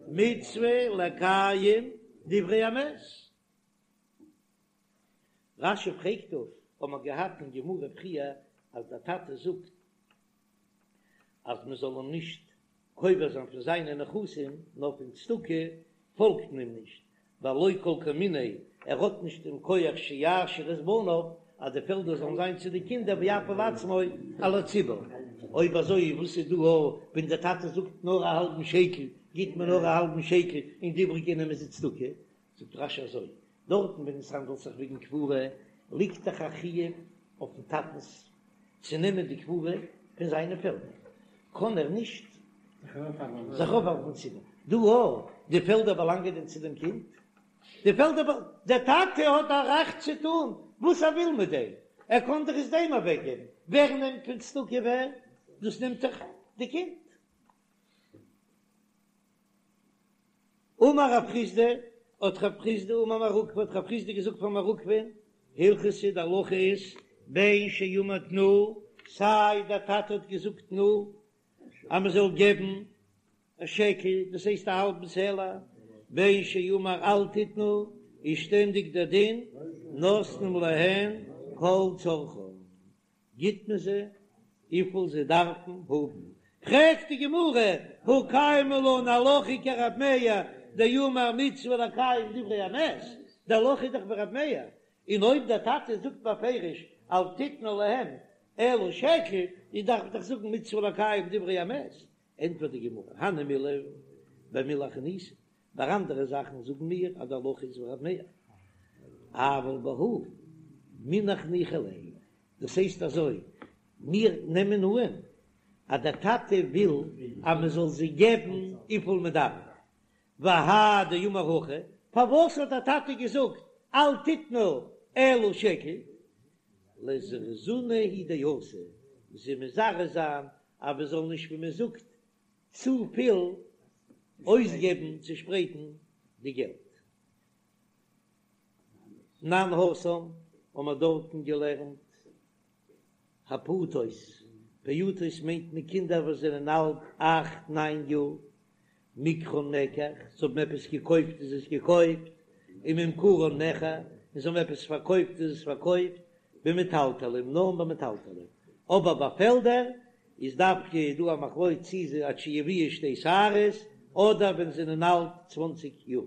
מצוה לקיים דברי המת. רש"י פרעגט דא, האט מען געהאט אין גמרא פריער אז דער טאטע זאגט אז מען זאל אים נישט קובר זיין פון זיינע נכסים נאר פון צדקה, פאלגט מען אים נישט, ווייל לא כל כמיניה, ער האט נישט דעם כח שיעשיר את בניו אז די פעלדער זאלן זיין צו די קינדער ויפיל עצמו על הציבור. אויב אזוי וואס איז דא ווען דער טאטע זאגט נאר א האלבן שקל גיט מען נאר א האלבן שקל און די איבריגע נעמען זיי צדקה, זאגט רש"י אזוי, דארטן ווען עס האנדלט זיך וועגן קבורה, ליגט דאך א חיוב אויפן טאטנס צו נעמען די קבורה פון זיינע פעלדער, קען ער נישט זיך אויפהאלטן צו דעם. דא אויך, די פעלדער באלאנגען דען צו דעם קינד? די פעלדער, דער טאטע האט א רעכט צו טון וואס ער וויל מיט דעם, ער קען דאך עס דעם אוועקגעבן, ווער נעמט פון צדקה ווער? דאס נעמט דאך די קינד. אמר רב חסדא, האט רב חסדא אמר מר עוקבא, האט רב חסדא געזאגט פאר מר עוקבא'ן, הלכתא די הלכה איז, בין שאמר תנו, סיי דער טאטע האט געזאגט תנו, אז מען זאל געבן א שקל, דאס הייסט א האלבן סלע, בין שאמר אל תתנו, איז שטענדיג דער דין, נותנים להן כל צרכן. גיט מען זיי וויפיל זיי דארפן האבן. פרעגט די גמרא, הא קיימא לן הלכה כרב מאיר דאמר מצוה לקיים דברי המת, די הלכה איז דאך ווי רב מאיר, און אויב דער טאטע זאגט בפירוש אל תתנו להם אלא שקל, איז דארף איך דאך זאגן מצוה לקיים דברי המת, ענטפערט די גמרא, הני מילי במילי אחרניתא, ביי אנדערע זאכן זאגן מיר אז די הלכה איז ווי רב מאיר, אבל בהא מינח ניחא ליה, דאס הייסט אזוי, מיר נעמען אן אז דער טאטע וויל אז מען זאל זיי געבן וויפיל מען דארף, והאי דאמר הכי, פארוואס האט דער טאטע געזאגט אל תתנו אלא שקל, לזרוזינהו הוא דאתא, זיי מזרז זיין אז מען זאל נישט ווי מען זאגט צופיל אויסגעבן צושפרייטן די געלט. תנן התם האבן מיר דארטן געלערנט הפעוטות, פעוטות מיינט מען קינדער וואס זענען אלט אכט ניין יאר, מקחן מקח, זיי האבן עפעס געקויפט איז עס געקויפט, וממכרן מכר, און זיי האבן עפעס פארקויפט איז עס פארקויפט, במטלטלין, נאר ביי מטלטלין, אבער ביי פעלדער איז דווקא דא א מחלוקת צי זיי עד שיביאו שתי שערות אדער ווען זיי זענען אלט צוואנציג יאר.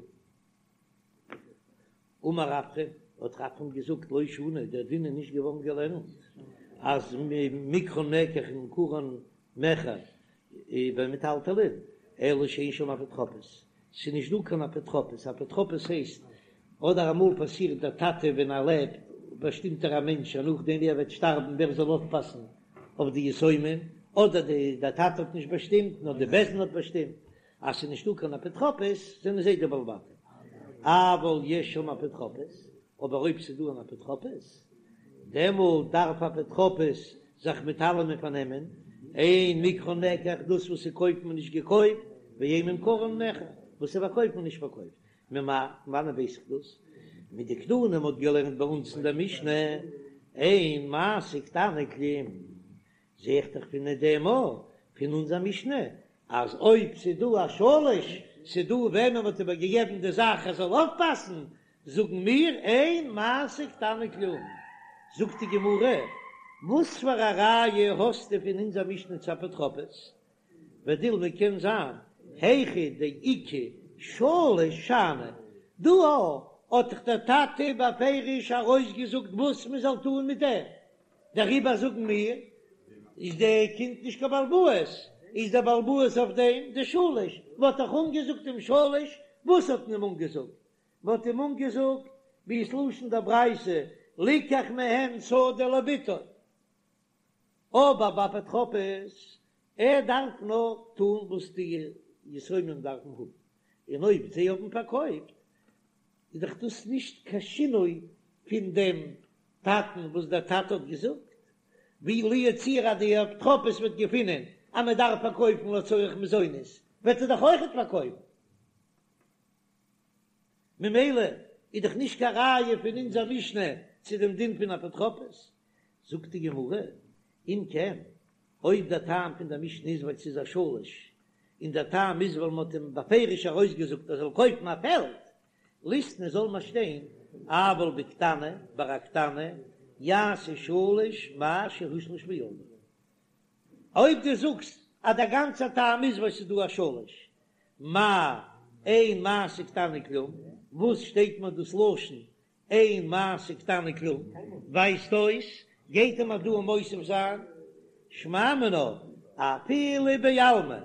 אמר רפרם, האט רפרם געזאגט, לא שנו, דער דין איז נישט געווארן געלערנט אז מקחן מקח וממכרן מכר במטלטלין, אלא שאין שם אפוטרופוס, ס'איז נישט דא קיין אפוטרופוס, אפוטרופוס הייסט אדער אמאל פאסירט דער טאטע ווען ער לעבט באשטימט ער א מענטש אז נאכדעם ווי ער וועט שטארבן ווער זאל אויפפאסן אויף די יתומים, אדער די דער טאטע האט נישט באשטימט נאר די בית דין האט באשטימט אז ס'איז נישטא קיין אפוטרופוס זענען זיי די בעלי בתים, אבל יש שם אפוטרופוס, אבער אויב ס'איז דא אן אפוטרופוס דעמאלט דארף אפוטרופוס זיך מיט אלעמען פארנעמען, אין מקחן מקח דאס וואס ס'קויפט מען נישט געקויפט, ואין ממכרן מכר וואס ס'פארקויפט מען נישט פארקויפט, ממאי, פון וואנען ווייס איך דאס? מדקתני מ'האט געלערנט ביי אונז אין דער משנה, אין מעשה קטנה כלום, זע איך דאך פון דעם א, פון אונזער משנה, אז אויב ס'איז דא א שליש, ס'איז דא וועמען מ'האט איבערגעגעבן די זאך ער זאל אויפפאסן, זאגן מיר אין מעשה קטנה כלום. זאגט די גמרא, וואס פאר א ראיה האסטו פון אונזער משנה צו אפוטרופוס? ודילמא קען זיין היכא דאיכא שליש שאני, דא האט דאך דער טאטע בפירוש ארויסגעזאגט וואס מען זאל טון מיט דעם, דעריבער זאגן מיר איז די קינד נישט קיין בעל הבית, איז דער בעל הבית אויף דעם די שליש, מען האט דאך אנגעזאגט דעם שליש, וואס האט מען אים אנגעזאגט? מען האט אים אנגעזאגט ווי עס לשון דער ברייתא ליקח מהם שדה לבתו, אבער ביי אפוטרופוס, ער דארף נאר טון וואס די יתומים דארפן האבן, און אויב זיי האבן פארקויפט איז דאך דאס נישט קיין שינוי פון דעם טאטן וואס דער טאטע האט געזאגט, ווי לו יצוייר אז די אפוטרופוס וועט געפינען אז מען דארף פארקויפן לצורך מזונות וועט ער דאך אויכעט פארקויפן. ממילא איז דאך נישט קיין ראיה פון אונזער משנה צו דעם דין פון אפוטרופוס. זאגט די גמרא, אם כן, אויב דער טעם פון דער משנה איז ווייל ס'איז א שליש, און דער טעם איז ווייל מ'האט אים בפירוש ארויסגעזאגט ער זאל קויפן א פעלד, ליתני זאל מען שטיין, אבל בקטנה, ביי א קטנה, יעשה שליש מה שהושלש בידו. אויב דו זאגסט אז דער גאנצער טעם איז ווייל ס'איז דא א שליש, מאי אין מעשה קטנה כלום, וואס שטייט מיר דאס לשון אין מעשה קטנה כלום, ווייזט אויס גייט ער מיר דא מוסיף זיין שמע מינה אפילו בעלמא,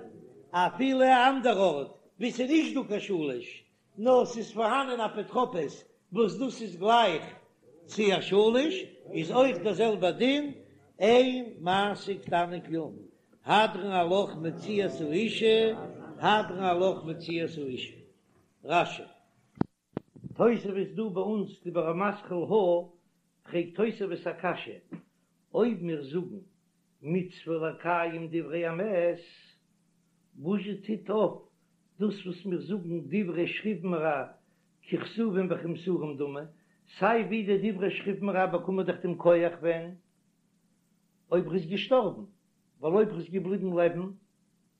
אפילו א אנדער ארט וואו ס'איז נישט דא קיין שליש, נאר ס'איז פארהאנען אפוטרופוס וואס דאס איז גלייך צו א שליש, איז אויך דער זעלבער דין, אין מעשה קטנה כלום, הדרן עלך מציאת האשה, הדרן עלך מציאת האשה. רש"י. תוספות דא ביי אונז דיבור המתחיל הא, פרעגט תוספות א קשיא, אויב מיר זאגן מצוה לקיים דברי המת, וואזשע טוט אויף דאס וואס מיר זאגן דברי שכיב מרע ככתובים וכמסורים דמי, סיי ווי די דברי שכיב מרע באקומען דאך דעם כח ווען אויב ר'איז געשטארבן, ווייל אויב ר'איז געבליבן לעבן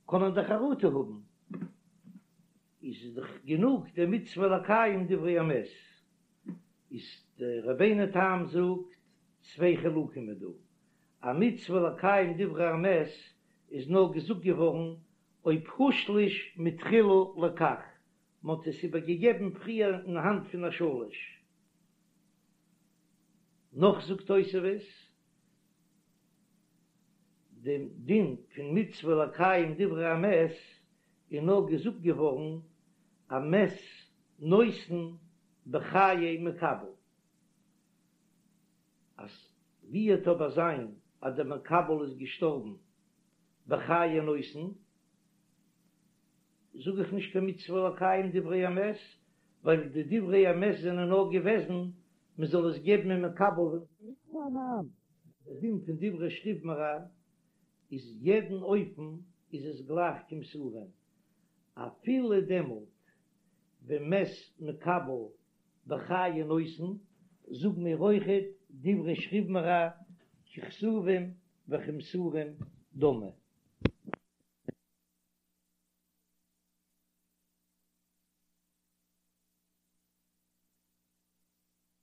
קען ער דאך חרטה האבן, איז דאך גענוג די מצוה לקיים דברי המת, איז די רבינו תם זאגט צוויי חילוקים איז דא, א מצוה לקיים דברי המת איז נאר געזאגט געווארן אויב הושלש מתחילה לכך, מען האט עס איבער געגעבן פריער אין האנט פון א שליש. נאך זאגט תוספות, דעם דין פון מצוה לקיים דברי המת איז נאר געזאגט געווארן א מת נותן בחיי מקבל, אז ווי וועט אבער זיין אז דער מקבל איז געשטארבן בחיי נותן, זאג איך נישט קיין מצוה לקיים דברי המת, ווייל די דברי המת זענען נאר געוועזן מען זאל עס געבן אין מקבל. דער דין פון דברי שכיב מרע איז יעדן אופן איז עס גלייך כמסורין, אפילו דעמאלט ווען מת מקבל בחיי נותן, זאגן מיר אויכעט דברי שכיב מרע ככתובים וכמסורים דמי.